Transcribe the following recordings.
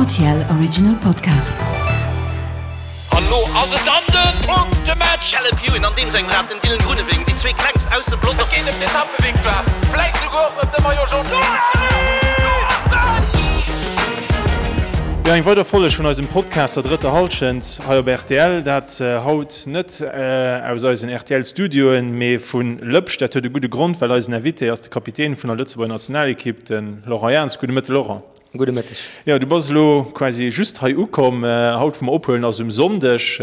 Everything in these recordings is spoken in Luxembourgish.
RTL Original Podcast. An lo ass et dann den Punktematch! Caleb Ewan an deem sengem Rad, den Dylan Groenewegen, déi zwee klengst aus dem Pelotong. Et geet ëm d'Etappevictoire, vläit souguer och ëm de Maillot Jaune. Jo, eng weider Folleg vun eisem Podcast Der drëtter Hallschent hei op rtl. Dat haut net aus eisen RTL-Studioen, mee vu Lëpsch. Dat huet e gudde Grond, well eisen Invité ass de Kapitän vun der Lëtzebuerger Nationalekipp, de Laurent Jans. Gudde Mëtte Laurent. Gudde Mëtteg. Jo, du bass elo quasi just hei ukomm. Haut wou mer ophuelen ass um Sonndeg,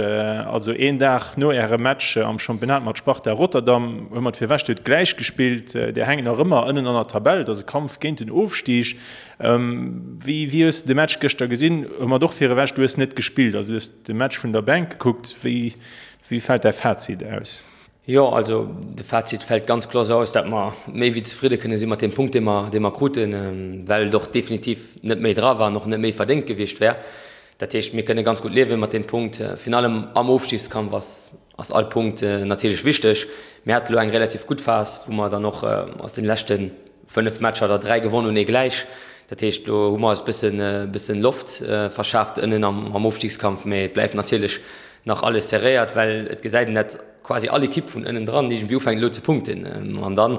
also een Dag no ärem Match am Championnat mat Sparta Rotterdam. Hu mer d'Virwächt huet gläich gespillt. Dir hänkt nach ëmmer ënnen an der Tabell. Et ass e Kampf géint den Ofstig. Wéi wéi hues de de Match gëschter gesinn? Hu mer och virewech, du hues net gespillt, also du hues de Match vun der Bänk gekuckt. Wéi wéi fält däi Fazit aus? Jo, also de Fazit fält ganz kloer esou aus, dat mer méi wéi zefridde kënne si mat deem Punkt, dee mer, dee mer kruten, well et och definitiv net méi dra war an och net méi verdéngt gewiescht wär. Dat heescht, mir kënne ganz gutt liewe mat deem Punkt. Virun allem am Ofstigskampf ass, ass all Punkt natierlech wichteg. Mir hate lo eng relativ gutt Phas, wou mer dann och aus den leschte 5 Matcher der 3 gewonn hunn, ee gläich. Dat heescht, lo hu mer eis bëssen, bëssen Loft verschaaft ënnen am, am Ofstigskampf, mee et bleift natierlech nach alles serréiert, well et gesäit een dat quasi all Ekipp vun ënnen dran iergendwéi ufänkt elo ze punkten. An dann,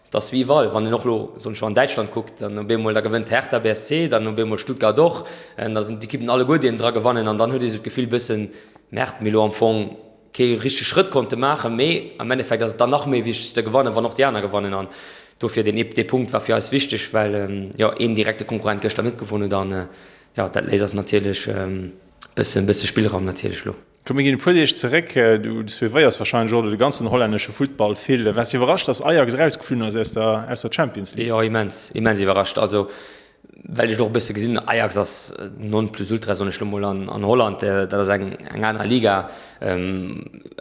et ass wéi iwwerall, wann een och elo, soen ech, an Däitschland kuckt, dann op eemol, da gewënnt Hertha BSC, dann op eemol Stuttgart och, da sinn d'Ekippen alleguer déi ënnen dra gewannen an dann huet ee sou d'Gefill bëssen, Merde, mir elo am Fong kee richtege Schrëtt konnte maachen, mee am Endeffekt ass et dann nach méi wichteg ze gewannen, wann och déi aner gewannen. An dofir deen dee Punkt war fir eis wichteg, well jo een direkte Konkurrent gëschter net gewonn huet an jo dat léisst eis natierlech Bëssen, bësse Spillraum natierlech lo. Komm mir ginn e puer Deeg zeréck. Du suivéiers warscheinlech och elo de ganzen hollännesche Futtball vill. Waars de iwwerrascht, dass Ajax erausgeflunn ass aus der, aus der Champions League? Jo, immens, immens iwwerrascht. Also well ech et och e bësse gesinn, Ajax ass non plus ultra, soen ech lo mol, an, an Holland. Dat ass eng, eng aner Liga,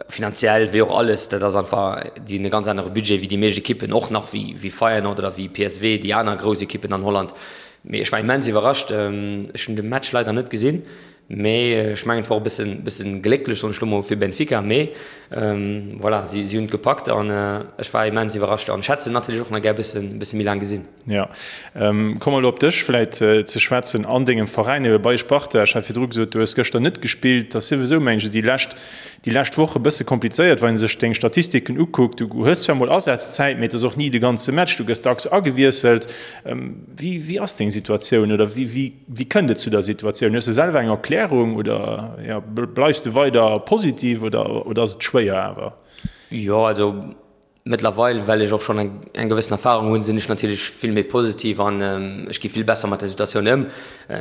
finanziell wéi och alles. Dat ass einfach, déi hunn e ganz anere Budget wéi déi meescht Ekippen, och nach wéi, wéi Feyenoord oder wéi PSV, déi aner grouss Ekippen an Holland. Mee ech war immens iwwerrascht. Ech hunn de Match leider net gesinn, mee ech mengen et war och e bëssen, bëssen glécklech, soen ech lo mol, fir Benfica. Mee voilà, si, si hunn et gepackt an ech war immens iwwerrascht an ech hätt se natierlech och nach gär e bëssen, bësse méi laang gesinn. Jo. Komme mer elo op dech vläit ze schwätzen an dengem Veräin, ebe bei Sparta. Ech hat virdru gesot, du hues gëschter net gespillt. Dat ass souwisou, mengen ech, déi lescht, déi lescht Woch e bësse komplizéiert, wann ee sech deng Statistiken ukuckt. Du hues zwar mol Asazzäit, mee et ass och ni de ganze Match. Du gëss dacks agewiesselt. Wéi, wéi ass deng Situatioun oder wéi, wéi, wéi kënnt et zu der Situatioun? Hues de selwer eng Erklärung oder ja, bleifs de weider positiv oder, oder ass et schwéier awer? Jo, also mëttlerweil, well ech och schonn eng, eng gewëssen Erfahrung hunn, sinn ech natierlech vill méi positiv an ech gi vill besser mat der Situatioun ëm.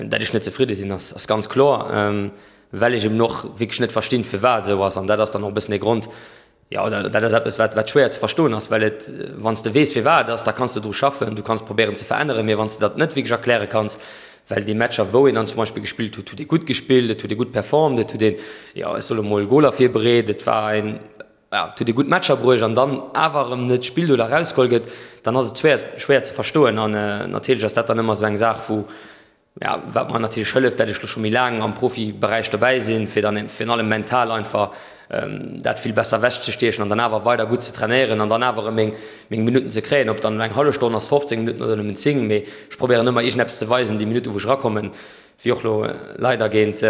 Dat ech net zefridde sinn, ass, ass ganz kloer, well ech eben och wierklech net verstinn, firwat et esou ass an dat ass dann och e bëssen de Grond, Jo, dat ass eppes, wat, wat schwéier ze verstoen ass, well et, wann s de weess, firwat et ass, da kanns de dru schaffen, du kanns probéieren ze veränneren, mee wann s de dat net wierklech erkläre kanns, well déi Matcher, wou een dann zum Beispill gespillt huet, huet ee gutt gespillt, et huet ee gutt performt, et huet een, jo, ech soe mol, Goler virbereet, et war een, jo, et huet ee gutt Matcher bruecht an dann awer erëm net spillt oder erausgeholl gëtt, dann ass et schwéier, schwéier ze verstoen. An natierlech ass dat dann ëmmer esou eng Saach, wou, Ja, wat mer natierlech hëlleft, dat ech lo scho méi laang am Profiberäich dobäi sinn, fir dann virun allem mental einfach dat vill besser ewechzestiechen an dann awer weider gutt ze trainéieren an dann awer erëm meng, meng Minutten ze kréien, ob dann elo eng hallef Stonn ass, 15 Minutten oder nëmmen 10, mee ech probéieren ëmmer iergendeppes ze weisen déi Minutten, wou ech erakommen, wéi och lo leider géint,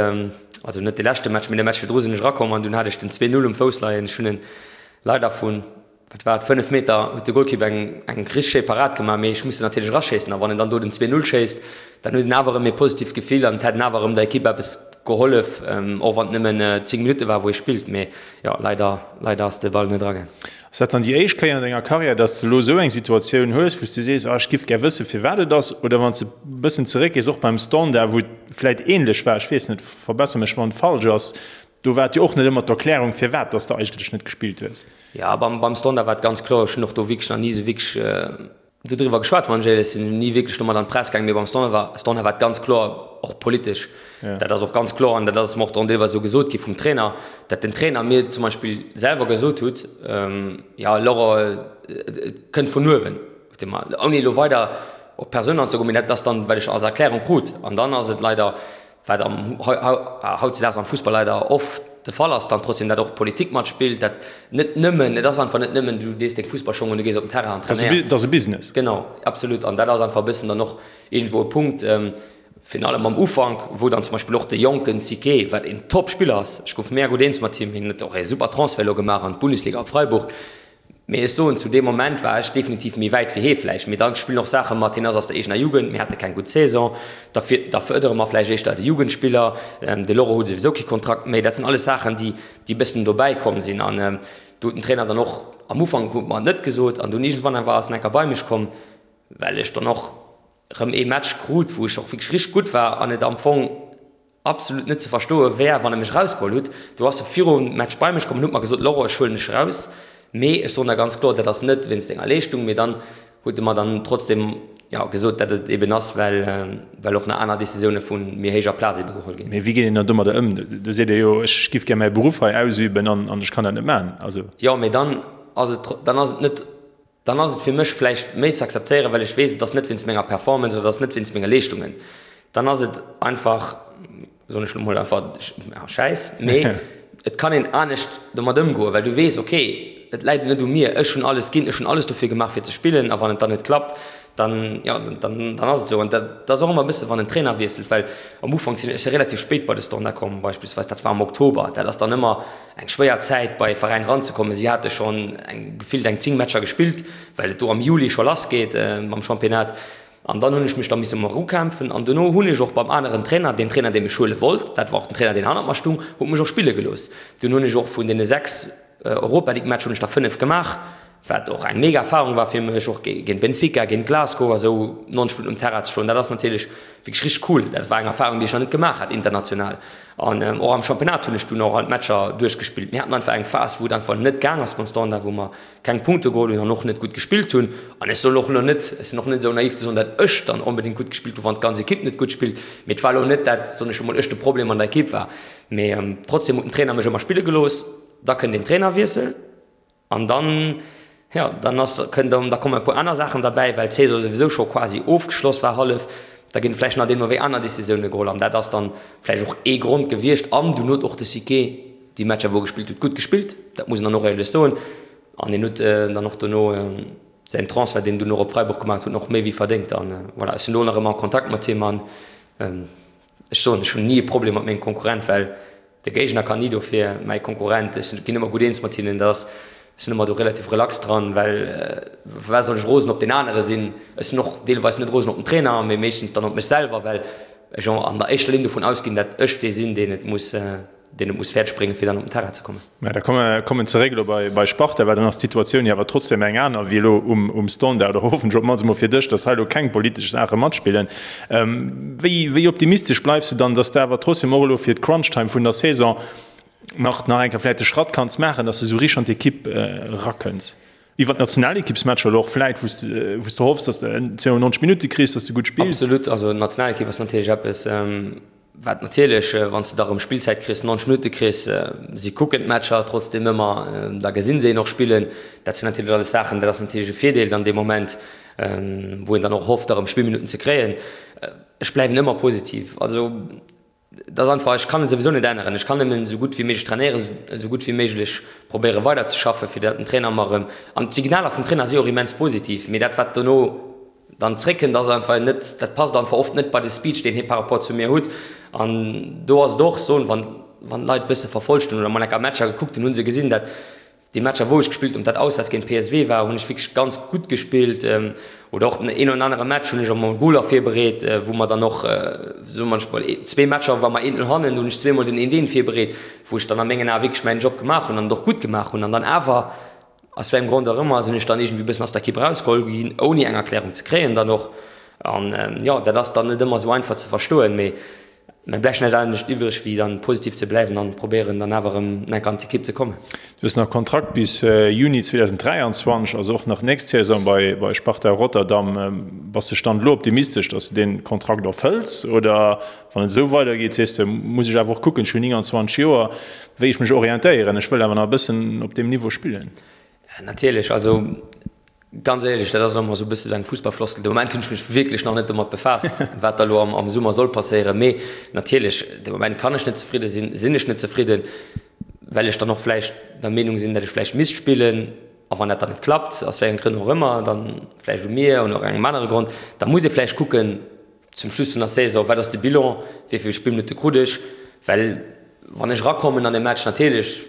also net de leschte Match, mee de Match virdru sinn ech erakomm an dunn hat ech den 2, 0 um Fouss leien. Ech hunn en leider vun Wat war et, 5 Meter huet de Golkipp eng eng richteg schéi Parad gemaach, mee ech muss se natierlech eraschéissen. A wann en dann do den 2, 0 schéisst, dann huet en awer erëm ee positiivt Gefill an et hätt en awer erëm der Ekipp eppes gehollef, och wann et nëmmen 10 Minutte war, wou ee spillt. Mee jo, leider, leider ass de Ball net eragaang. Ass dat dann déi éischt Kéier an denger Karriär, dass de elo esou eng Situatioun hues, wou s de sees, ah ech giff gär wëssen, firwat et ass? Oder wann s de e bëssen zeréckgees, och beim Standard, wou et vläit änlech war, ech weess net, verbesser mech wann et falsch ass, do war et jo och net ëmmer d'Erklärung, firwat dass de eigentlech net gespillt hues. Jo, beim, beim Standard war et ganz kloer. Ech hunn och do wierklech nach ni esou wierklech dodriwwer geschwat, wann ech éierlech sinn. Ni wierklech domat an d'Press gaangen. Mee beim Standard war, Standard war et ganz kloer, och politesch. Dat ass och ganz kloer an dat ass mer och dann deelweis esou gesot gi vum Trainer, dat den Trainer mir zum Beispill selwer gesot hutt, Jo, Laurent, et kënnt vun uewen, huet e mer, ouni elo weider op d'Persoun anzegoen, mee dat ass dann, wat ech als Erklärung krut. An dann ass et leider wat am hautzedaags am Fussball leider oft de Fall ass, dann trotzdem dat och Politik matspillt, dat net nëmmen, et ass einfach net nëmmen, du dees deng Fussballschong un, du gees op den Terrain an trainéiers. Dat ass e Business. Genau, absolut. An dat ass einfach e bëssen dann och iergendwou e Punkt. Virun allem am Ufank, wou dann zum Beispill och de jonken Siquet, wat een Top-Spiller ass, ech gouf mega gutt eens mat him, hien huet och ee super Transfert elo gemaach an d'Bundesliga op Freiburg, mee ech soen, zu deem Moment war ech definitiv méi wäit wéi hee vläicht. Mee da spillen och Saache mat, hien ass aus der eegener Jugend, mir hate keng gutt Saison, da da fërdere mer vläicht éischter de Jugendspiller, de Loro huet souwisou kee Kontrakt méi. Dat sinn alles Saachen, déi déi e bëssen dobäi komm sinn. An do huet den Trainer dann och am Ufank huet mer et net gesot an dunn iergendwann awer ass en enker bei mech komm, well ech dann och, rëm ee Match krut, wou ech och wierklech richteg gutt war an et am Fong absolut net ze verstoe wär, wann e mech erausgeholl hutt. Do ass e virum Match bei mech komm an huet mer gesot, Laurent, ech huelen dech eraus, mee ech soen der ganz kloer, dat ass net wéinst denger Leeschtung. Mee dann huet e mer dann trotzdem, jo, gesot, dat et eben ass, well, well och nach aner Decisioune vu méi héijer Plaz ebe geholl ginn. Mee wéi geet een dann domadder ëm? Do seet ee jo, ech giff gär mäi Beruff hei ausüben an ech kann dat net maachen. Also. Jo, mee dann ass et, dann ass et net Dann ass et fir mech vläicht méi ze akzeptéieren, well ech weess, et ass net wéinst menger Performance oder et ass net wéinst menge Leeschtungen. Dann ass et einfach, soen ech elo mol einfach, Schäiss. Mee et kann een anescht domat ëmgoen, well du weess, okay, et läit net u mir, ech hunn alles ginn, ech hunn alles dofir gemaach fir ze spillen a wann et dann net klappt, dann, jo, dann ass et esou. An dat ass och ëmmer e bësse wann en Trainer wiesselt, well am Ufank sinn ech si relativ spéit bei de Standard komm beispillsweis, dat war am Oktober, dat ass dann ëmmer, Eng schwéier Zäit bei e Veräin eranzekommen. Si hate schonn eng gefillt eng 10 Matcher gespillt, well et do am Juli scho lass geet mam Championnat. An dann hunn ech mech da misse mol erukämpfen. An dono hunn ech och beim aneren Trainer, deen Trainer dee mech huele wollt, dat war och den Trainer deen hannert mer stung, huet mech och spille gelooss. Dunn hunn ech och vun deene 6 Europa League Matcher hunn ech der 5 gemaach. Wat och eng mega Erfahrung war fir mech, och géint Benfica, géint Glasgow a sou 90 Minutten um Terrain ze stoen, dat ass natierlech wierklech richteg cool. Dat war eng Erfahrung, déi ech nach net gemaach hat international. An och am Championnat hunn ech dunn och all d'Matcher duerchgespillt. Mir haten einfach eng Phas, wou et einfach net gaang ass beim Standard, wou mer keng Punkte geholl hunn an och net gutt gespillt hunn. An ech soll och elo net, ech sinn och net esou naiv ze soen, datt ech dann onbedéngt gutt gespillt hunn, wann d'ganz Ekipp net gutt spillt. Mee et war elo net, dat, soen ech emol, ech de Problem an der Ekipp war. Mee trotzdem huet den Trainer mech ëmmer spille gelooss. Da kënnt een Trainerwiessel. An dann, jo, dann ass, kënnt erëm, da kommen e puer aner Saachen derbäi, well d'Saison souwisou scho quasi ofgeschloss war hallef. Da ginn vläicht nach deemno wéi aner Decisioune geholl an dat ass dann vläicht och ee Grond gewiescht. An dunn huet och de Siquet déi Matcher, wou e gespillt huet, gutt gespillt, dat muss een dann och éierlech soen. An hien huet dann och dono säin Transfert, deen en dunn och op Freiburg gemaach huet, och méi wéi verdéngt. An voilà, ech sinn elo nach ëmmer a Kontakt mat him an ech soen, ech hunn ni e Problem mat mengem Konkurrent, well De Géigner kann ni dofir, mäi Konkurrent, ech ginn ëmmer gutt eens mat hinnen, dat ass, ech sinn ëmmer do relativ relax dran, well firwat soll ech rosen op deen anere sinn? Ech sinn och deelweis net rosen op den Trainer, mee meeschtens dann op mech selwer, well ech an der éischter Linn dovun ausginn, dat ech dee sinn, deen et muss, deen et muss fäerdeg bréngen, fir dann op den Terrain ze kommen. Mä da komme kommen zeréck elo bei bei Sparta, well dann ass d'Situatioun jo awer trotzdem eng aner wéi elo um um Standard, oder hoffentlech op d'mannst emol fir dech, datt hei elo keng politesch Saache matspillen. Wéi wéi optimistesch bleifs de dann, datt de awer trotzdem och elo fir d'Crunch-Time vun der Saison nach nach eng Kéier vläicht de Schratt kanns maachen, datt de sou richteg an d'Ekipp erakënns? Iwwer d'Nationalekippsmatcher elo och vläicht, wou s de wou s de hoffs, datt de 92 Minutte kriss, datt s de gutt spills? Absolut, also d'Nationalekipp ass natierlech eppes, Wat natierlech, wann s de da rëm Spillzäit kriss, 90 Minutte kriss, si kucken d'Matcher trotzdeem ëmmer, da gesinn se een och spillen. Dat sinn natierlech alles Saachen, dat ass natierlech e Virdeel dann dee Moment, wou een dann och hofft, da rëm Spillminutten ze kréien. Ech bleiwen ëmmer positiv. Also et ass einfach, ech kann et souwisou net änneren. Ech kann nëmmen esou gutt wéi méiglech trainéieren, esou gutt wéi méiglech probéiere weiderzeschaffen, fir datt den Trainer mer erëm, an d'Signaler vum Trainer si och immens positiv, mee dat wat dono dann zréckkënnt, ass einfach net, dat passt einfach oft net bei de Speech, deen hie par rapport zu mir hutt. An do ass et och soen, wann, wann d'Leit e bësse verfolgt hunn oder mol enker Matcher gekuckt hunn, hu se gesinn, dat déi Matcher wou ech gespillt hunn, ob dat auswäerts géint PSV war, hunn ech wierklech ganz gutt gespillt. Oder och den een oder anere Match hunn ech och mol Goler virbereet, wou mer dann och, soe mer mol, zwee Matcher war mer 1-0 hannen, do hunn ech zweemol den 1-1 virbereet, wou ech dann a mengen Ae wierklech mäin Job gemaach hunn an et och gutt gemaach hunn. An dann awer Aus wéi engem Grond och ëmmer sinn ech dann iergendwéi bëssen aus der Ekipp erausgeholl ginn, ouni eng Erklärung ze kréien dann och. An jo, dat ass dann net ëmmer esou einfach ze verstoen, mee mir bleift näischt anescht iwwreg wéi dann positiv ze bleiwen an probéieren dann awer erëm enk an d'Ekipp ze kommen. Du hues nach Kontrakt bis Juni 2023, also och nach nächst Saison bei Sparta Rotterdam. Bass de Stand elo optimistesch, datt s de dee Kontrakt erfëlls oder Wann et esou weidergeet, sees de, muss ech awer och kucken, ech hunn 29 Joer, wéi ech mech orientéieren. Ech wëll awer nach e bëssen op deem Niveau spillen. Natierlech, also ganz éierlech, dat ass elo emol esou e bësse sou eng Fussballfloskel, de Moment hunn ech mech wierklech nach net domat befaasst, wat da elo am Summer soll passéieren. Mee natierlech, de Moment kann ech net zefridde sinn, sinn ech net zefridden, well ech dann och vläicht der Meenung sinn, datt ech vläicht misst spillen. A wann dat dann net klappt, aus wéi engem Grënn och ëmmer, dann vläicht u mir oder engem anere Grond, da muss ee vläicht kucken,. Zum Schluss vun der Saison, wat ass de Bilan, wéi vill Spillminutte krut ech? Well wann ech erakommen an e Match, natierlech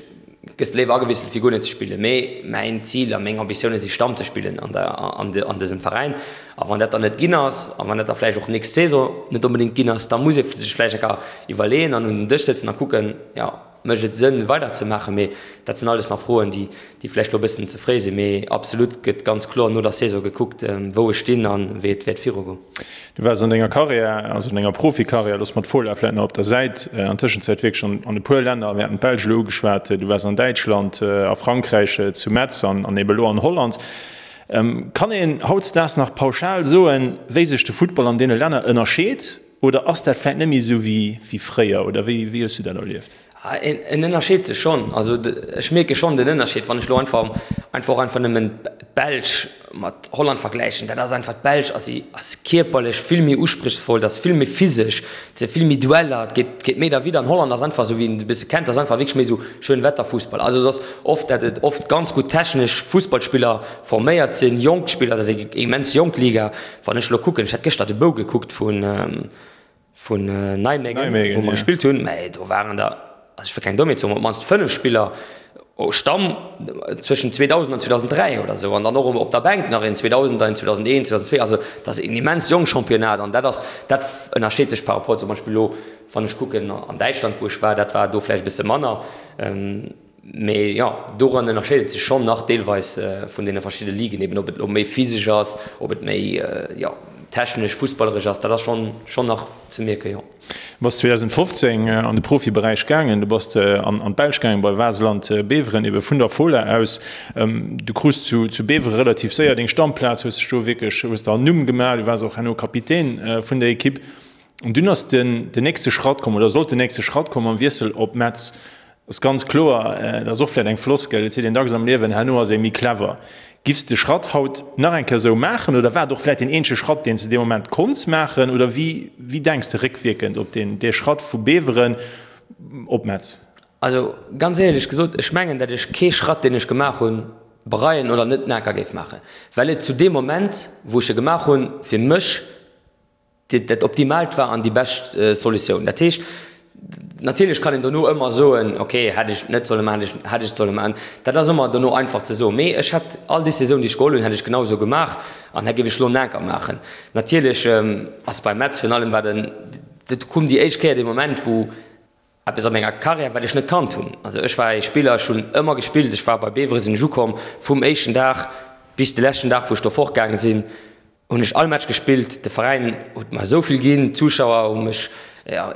gëss de léiwer agewiesselt wéi guer net ze spillen, mee mäin Zil a meng Ambitioune si Stamm ze spillen an der an dësem Veräin. A wann dat dann net ginn ass a wann dat da vläicht och nächst Saison net onbedéngt ginn ass, da muss ee sech vläicht eng Kéier iwwerleeën an un den Dësch sëtzen a kucken, jo, Mécht et Sënn weider ze maachen? Mee dat sinn alles nach Froen, déi vläicht elo e bëssen ze fréi sinn. Mee absolut gëtt ganz kloer no der Saison gekuckt, wou ech stinn a wéi et wäert virugoen. Du waars an denger Karriär, also an denger Profikarriär, loosse mer d'Fola vläicht nach op der Säit, an Tëschenzäit wierklech an e puer Länner, mir haten d'Belsch elo ugeschwat, du waars an Däitschland, a Frankräich, zu Metz an ebe elo an Holland. Kann een hautdesdaags nach pauschal soen, wéi sech de Futtball an deene Länner ënnerscheet? Oder ass dat vläit net méi esou wéi fréier? Oder wéi hues du dat erlieft? En ënnerscheet sech schonn. Also ech mierke schonn den Ënnerscheed, wann ech elo einfach einfach och einfach nëmmen d'Belsch mat Holland vergläichen. Dat ass einfach, d'Belsch ass ass kierperlech vill méi usprichsvoll, dat ass vill méi physesch, et si vill méi Dueller, et geet geet méi derwidder. An Holland ass einfach, esou wéi een et e bësse kennt, ass einfach wierklech méi esou Schönwetterfussball. Also et ass oft, dat et oft ganz gutt technesch Fussballspiller forméiert sinn, jonk Spiller, dat ass eng immens jonk Liga. Wann ech elo kucken, ech hat gëschter de Bou gekuckt vun vun Nijmegen, wou mer gespillt hunn, mä do waren der, also ech wëll keng Dommheet soen, mä op d'mannst 5 Spiller Stamm zwëschen 2000 an 2003 oder esou an dann och op der Bänk nach een 2000er, een 2001, 2002. Also dat ass een immens jonk Championnat an dat ass, dat ënnerscheet sech par rapport zum Beispill elo, wann ech kucken an Däitschland, wou ech war, dat war do vläicht e bësse manner. Mee jo, doran ënnerscheet et sech schonn nach deelweis vun deene verschidde Ligen, eben ob et elo méi physesch ass, ob et méi, jo, technesch, fussballeresch ass, dat ass schonn, schonn nach ze mierken, jo. Du bass 2015 an de Profiberäich gaangen, du bass an d'Belsch gaangen bei Waasland Beveren, ebe vun der Fola aus. Du krus zu Beveren relativ séier deng Stammplaz, hues dech do wierklech, hues der en Numm gemaach, du waars och herno Kapitän vun der Ekipp. An dunn ass den nächste Schratt komm, oder sollt den nächste Schratt kommen mam Wiessel op Metz. Ass ganz kloer, dat ass och vläit eng Floskel, et seet een dacks am Liewen, herno ass ee méi clever. Giffs de Schratt haut nach eng Kéier esou maachen oder war et och vläit deen eenzege Schratt, deen s de dee Moment konnts maachen? Oder wéi, wéi denks de réckwierkend op deen, dee Schratt vu Beveren op Metz? Also ganz éierlech gesot, ech mengen, dat ech kee Schratt, deen ech gemaach hunn, bereien oder net naker géif maachen, well et zu deem Moment, wou ech e gemaach hunn, fir mech dat Optimaalt war an déi bescht Solutioun. Dat heescht, natierlech kann een dono ëmmer soen, okay, hätt ech net solle maachen, hätt ech solle maachen. Dat ass ëmmer dono einfach ze soen. Mee ech hätt all Decisioun, déi ech geholl hunn, hätt ech genau esou gemaach an hätt géif ech elo naker maachen. Natierlech ass bei Metz virun allem war den, dat koum déi éischt Kéier dee Moment, wou Eppes a menger Karriär, wat ech net kannt hunn. Also ech war ee Spiller, ech hunn ëmmer gespillt, ech war bei Beveren, sinn ech ukomm, vum éischten Dag bis de leschten Dag wou ech do fortgaange sinn, hunn ech all Match gespillt. De Veräin huet mer esou vill ginn, d'Zuschauer hu mech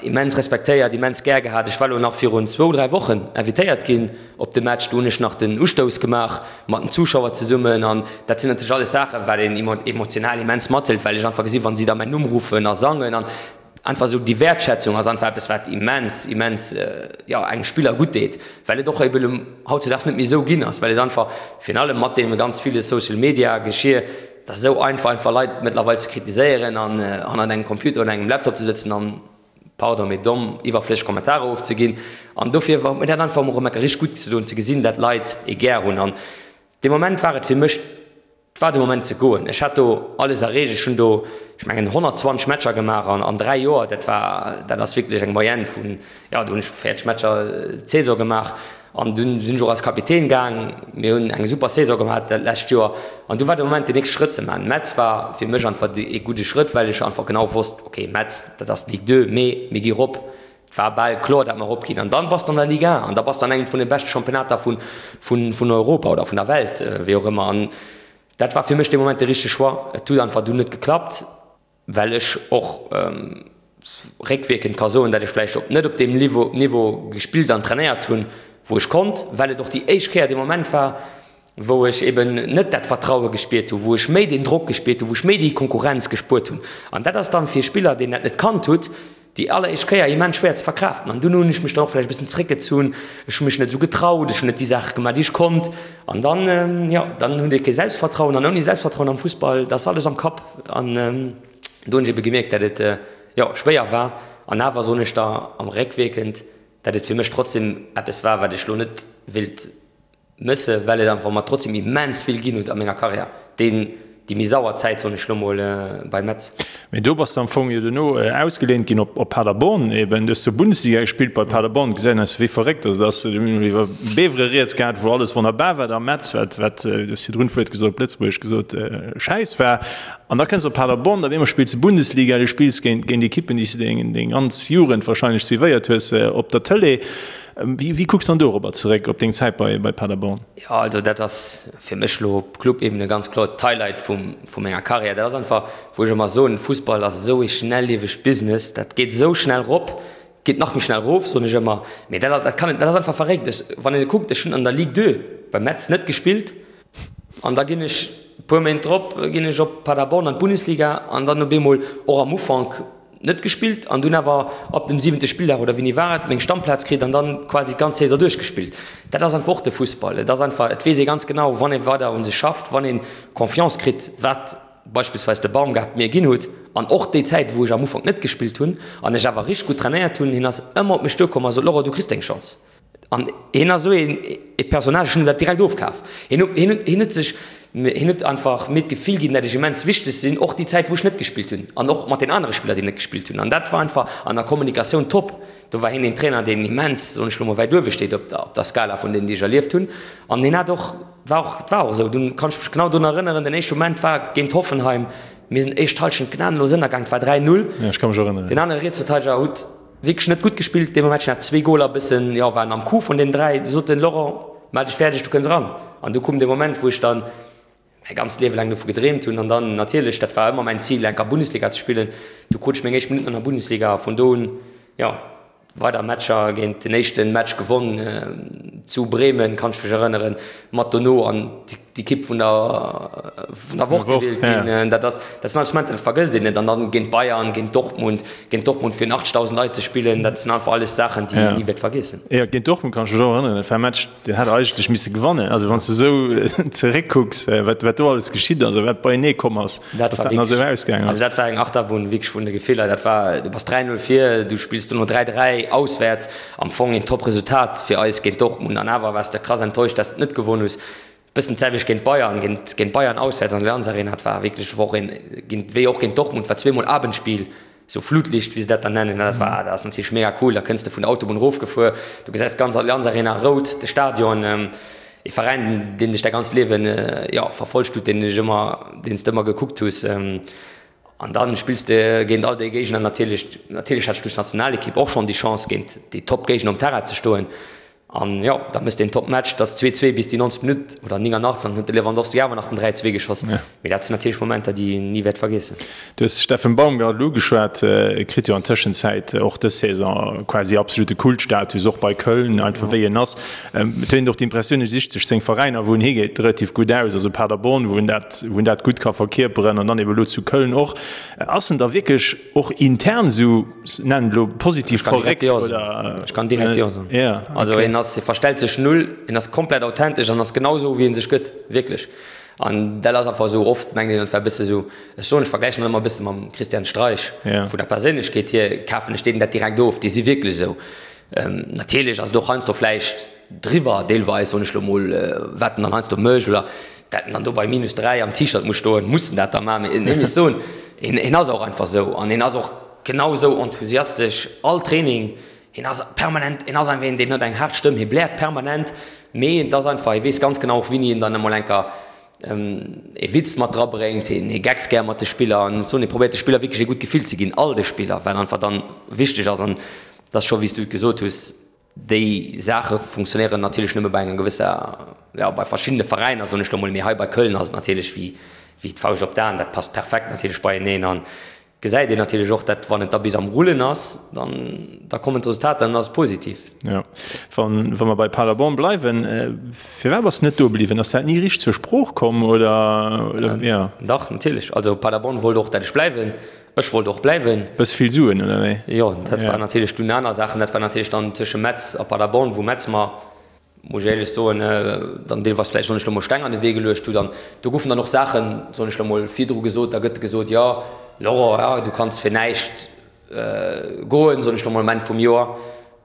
immens respektéiert, immens gär gehat. Ech war elo nach virun zwou, dräi Wochen invitéiert ginn op de Match, do hunn ech nach den Ustouss gemaach mat den Zuschauer zesummen an dat sinn natierlech alles Saachen, wat een emotional immens mathëlt, well ech einfach gesinn, wa si da mäin Numm ruffen a sangen an Einfach esou déi Wäertschätzung ass einfach eppes, wat immens, immens, jo, engem Spiller gutt deet, well et och eben hautzedaags net méi esou ginn ass, well et einfach, virun allem mat deem ganz ville Social Media Geschir, et ass esou einfach, einfach Leit mëttlerweil ze kritiséieren an hannert engem Computer oder engem Laptop ze sëtzen an, pardon, mee domm, iwwerflësseg Kommentarer ofzeginn. An dofir huet mir dat einfach emol erëm eng Kéier richteg gutt gedoen ze gesinn, dat Leit ee gär hunn. An dee Moment war et fir mech, Et war de Moment ze goen. Ech hat do alles erreecht. Ech hunn do, ech mengen, 120 Matcher gemaach an 3 Joer. Dat war, dat ass wierklech eng Moyenne vun, jo, do hunn ech 40 Matcher d'Saison gemaach. An dunn sinn ech och als Kapitän gaang. Mir hunn eng super Saison gemaach dat lescht Joer. An du war de Moment, den nächste Schrëtt ze maachen. Metz war fir mech einfach ee gudde Schrëtt, well ech einfach genau wosst, okay, Metz, dat ass d'Ligue 2, mee mir gi rop. Et war bal kloer, datt mer eropginn. An dann bass de an der Ligue 1 an da bass de an engem vun de beschte Championnater vun, vun, vun Europa oder vun der Welt, wéi och ëmmer. An dat war fir mech dee Moment de richtege Choix. Et huet einfach dunn net geklappt, well ech och réckwierkend ka soen, datt ech vläicht op net op deem Niveau, Niveau gespillt an trainéiert hunn, wou ech konnt, well et och déi éischt Kéier dee Moment war, wou ech eben net dat Vertraue gespiert hunn, wou ech méi deen Drock gespiert hunn, wou ech méi déi Konkurrenz gespuert hunn. An dat ass dann fir e Spiller, deen dat net kannt hutt, déi alleréischt Kéier immens schwéier ze verkraaften. An dunn hunn ech mech dann och vläicht e bëssen zeréckgezunn, ech hu mech net esou getraut, ech hunn net déi Saache gemaach, déi ech konnt. An dann, jo, dann hutt ee kee Selbstvertrauen an ouni Selbstvertrauen am Fussball, dat ass alles am Kapp. An do hunn ech ebe gemierkt, dat et, jo, schwéier war. An awer soen ech da am réckwierkend, dat et fir mech trotzdem eppes war, wat ech elo net wéilt Mësse well et einfach mer trotzdem immens vill ginn huet a menger Karriär. Deen, déi. Déi méi sauer Zäit, soen ech lo mol, bei Metz. Mee do bass de am Fong jo dono ausgeléint ginn op Paderborn eben. Du hues do Bundesliga gespillt bei Paderborn. Gesäit een eis wéi verréckt ass. Et ass, mir hunn iwwer Bevere rieds gehat, wou alles wonnerbar war, da Metz, wat, wat, du hues virdrun d'Wuert gesot, op Lëtzebuergesch gesot, Schäiss war. An da kënns de op Paderborn, op eemol spills de Bundesliga, du spills géint, géint Ekippen, déi s de deng, deng ganz Jugend wahrscheinlech suivéiert hues op der Tëlee. Wéi, wéi kucks de dann dorobber zeréck, op deng Zäit bei, bei Paderborn? Jo, also dat ass fir mech elo op Club-Ebene ganz kloer d'Highlight vu menger Karriär. Dat ass einfach, wou ech ëmmer soen, Fussball ass esou ee schnelliewegt Business, dat geet esou schnell rop, geet nach méi schnell erof, soen ech ëmmer. Mee dat, dat kann, dat ass einfach verréckt. Ech, wann een kuckt, ech hunn an der Ligue 2 bei Metz net gespillt an da ginn ech e puer Méint drop ginn ech op Paderborn an d'Bundesliga an dann op eemol och am Ufank, Net gespillt an dunn awer ab dem siwente Spilldag, oder wéini war et, meng Stammplaz kritt an dann quasi d'ganz Saison duerchgespillt. Dat ass einfach och de Fussball. Et ass einfach, et weess ee ganz genau, wann ee weider u sech schafft, wann ee Confiance kritt, wat beispillsweis de Baumgart mir ginn hutt an och déi Zäit, wou ech am Ufank net gespillt hunn an ech awer richteg gutt trainéiert hunn, hien ass ëmmer op mech duerkomm a sot, Laurent, du kriss deng Chance. An hien ass esou een ee Personnage, ech hunn him dat direkt ofkaf. Hien huet, hien huet, hien huet sech, hien huet einfach mir d'Gefill ginn, dat ech immens wichteg sinn, och déi Zäit wou ech net gespillt hunn an och mat den anere Spiller, déi net gespillt hunn. An dat war einfach an der Kommunikatioun top. Do war hien een Trainer, deen immens, soen ech elo mol, wäit uewe steet op der, op der Skala vun deenen, déi ech erlieft hunn. An hien hat och, war och, et war och esou, dunn kann ech mech genau drun erënneren, den éischte Moment war géint Hoffenheim, mir sinn éischt Hallschent gnadenlos ënnergaang, et war 3, 0. Jo, ech ka mech erënneren. Den anere Rietsverteideger huet Wierklech net gutt gespillt dee Match, hat zwee Goler bëssen, jo, waren am Coup vun den 3. Du sot den Laurent, Maach dech fäerdeg, du kënns eran. An du koum dee Moment, wou ech dann mäi ganzt Liewe laang dovu gedreemt hunn. An dann natierlech, dat war ëmmer mäin Zil, enker Bundesliga ze spillen. Du krut ech meng éischt Minutten an der Bundesliga a vun do un, jo, weider Matcher géint den éischten Match gewonn zu Bremen, kann ech mech erënneren, mat dono an d'Ekipp vun der vun der Woch gewielt ginn. Dat ass dat sinn alles Momenter, dat vergësst een net. An dann géint Bayern, géint Dortmund, géint Dortmund virun 80.000 Leit ze spillen, dat sinn einfach alles Saachen, déi een ni wäert vergiessen. Jo, géint Dortmund kann ech mech och erënneren. Dat war e Match, deen hätt der eigentlech misse gewannen. Also wann s de esou zeréckkucks, wat wat do alles geschitt ass a wat beienee komm ass, dass dat nach esou ausgaangen ass. Also dat war eng Achterbunn wierklech vun de Gefiller. Dat war, du bass 3, 0 vir, du spills dono 3, 3 auswäerts. Am Fong een top Resultat fir eis géint Dortmund an awer waars de krass enttäuscht, dass de et net gewonn hues. Bëssen d'selwecht géint Bayern, géint géint Bayern auswäerts an der Allianz Arena, dat war wierklech och een, géint wéi och géint Dortmund war zweemol Abendspiel, sou Flutlicht wéi se dat dann nennen, dat war dat ass natierlech mega cool. Da kënns de vun der Autobunn erofgefuer, du gesäis d'ganz Allianz Arena rout, de Stadion, ee Veräin deen dech däi ganzt Liewen, jo, verfollegt huet, deen dech ëmmer, deen s de ëmmer gekuckt hues. An dann spills de géint all déi Géigner natierlech. Natierlech hat ech duerch d'Nationalekipp och schonn déi Chance géint déi Top-Géigner um Terrain ze stoen. An jo, da méchs de een Top-Match, dat ass 2, 2 bis déi 90. Minutt oder 89 an huet de Lewandowski awer nach den 3, 2 geschoss. Mee dat sinn natierlech Momenter, déi een ni wäert vergiessen. Du hues de Steffen Baumgart elo ugeschwat. E kritt jo an Tëschenzäit och dës Saison quasi absolute Kultstatus, och bei Köln, einfach wéi en ass. Et huet een och d'Impressioun, e sicht sech seng Veräiner, wou en higeet, relativ gutt aus. Also Paderborn, wou en dat, wou en dat gutt ka verkierperen an dann ebe lo zu Köln och. Ass en da wierklech och intern esou, nennen et elo positiv verréckt oder? Ech kann direkt jo soen. Ja, okay. Also en ass, e verstellt sech null, en ass komplett authentesch an ass genau esou, wéi en sech gëtt, wierklech. An dat ass einfach esou, oft mengt een, et wär e bësse esou, ech soen, ech vergläichen dat ëmmer e bësse mam Christian Streich, vun der Perséinlechkeet hier kafen ech deenen dat direkt of, déi si wierklech esou. Natierlech ass et och heiansdo vläicht driwwer, deelweis, soen ech lo mol, wat en dann heiansdo mécht oder dat en dann do bei minus 3 am T-Shirt muss stoen, muss en dat da maachen? Mee ech muss soen, hien ass och einfach esou an hien ass och genau esou enthusiastesch all Training. Hien ass permanent, hien ass einfach een, deen huet eng haart Stëmm, hie bläert permanent, mee et ass einfach, hie weess ganz genau och, wéini en dann emol enker ee Witz mat dra bréngt, hien hie geckst gär mat de Spiller an ech soen, hie probéiert de Spiller wierklech ee gutt Gefill ze ginn, all de Spiller, wat einfach dann wichteg ass an Et ass scho wéi s du et gesot hues, déi Saache funktionéieren natierlech nëmme bei enger gewësser, jo bei verschiddene Veräiner soen ech lo mol, mee hei bei Köln ass et natierlech wéi wéi d'Fauscht op d'Aen, dat passt perfekt natierlech beieneen an gesäit een natierlech och, dat wann et da bis am Rullen ass, dann da kommen d'Resultater an dann ass et positiv. Jo, wann wa mer bei Paderborn bleiwen, firwat bass de net do bliwwen? Ass dat ni richteg zur Sprooch komm oder oder jo? Dach natierlech, also Paderborn wollt och dat ech bleiwen. Ech wollt och bleiwen. Bësse vill Suen, oder wéi? Jo, dat war natierlech dunn aner Saachen. Dat war natierlech dann tësche Metz a Paderborn, wou Metz mer, muss ech éierlech soen, dann deelweis vläicht, soen ech lo mol, Steng an de Wee geluecht hutt. An do goufen dann och Saachen, soen ech lo mol, virdru gesot. Da gëtt gesot, jo, Laurent, jo, du kanns fir näischt goen, soen ech lo mol, um Enn vum Joer.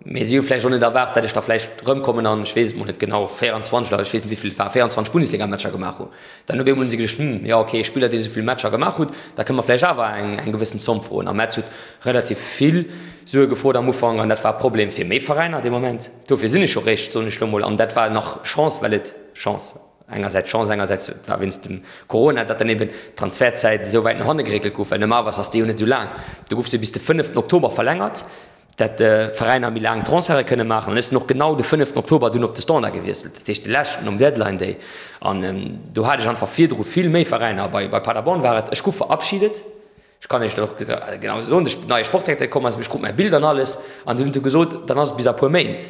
Mee si hu vläicht och net erwaart, datt ech da vläicht erëmkommen an, ech weess et mol net genau, 24 oder ech weess net wéi vill et war, 24 Bundesligamatcher gemaach hu. Dann op eemol hu si geduecht, Hm, jo okay, e Spiller deen esou vill Matcher gemaach hutt, da kënne mer vläicht awer eng eng gewëssen Zomm froen. A Metz huet relativ vill Sue gefrot am Ufank an dat war e Problem fir méi Veräiner dee Moment. Dofir sinn ech jo réischt, soen ech lo mol, an dat war nach Chance, well et Chance, engersäits Chance, engersäits et war wéinst dem Corona, datt dann eben d'Transfertzäit esou wäit no hanne geréckelt gouf, well normalerweis ass déi jo net esou laang. Do gouf se bis de fënneften Oktober verlängert. dat d'Veräiner méi laang Transferte kënne maachen. An ech sinn och genau de fënneften Oktober dunn op de Standard gewiesselt, dat heescht de leschten nom Deadline Day. An do hat ech einfach virdru vill méi Veräiner. Bei Paderborn war et, ech gouf verabschiedet, ech kann Iech dat och genau esou soen, de neie Sportdirekter komm ass, ech krut mäi Bild an alles, an dunn huet e gesot, dann ass et bis a puer Méint,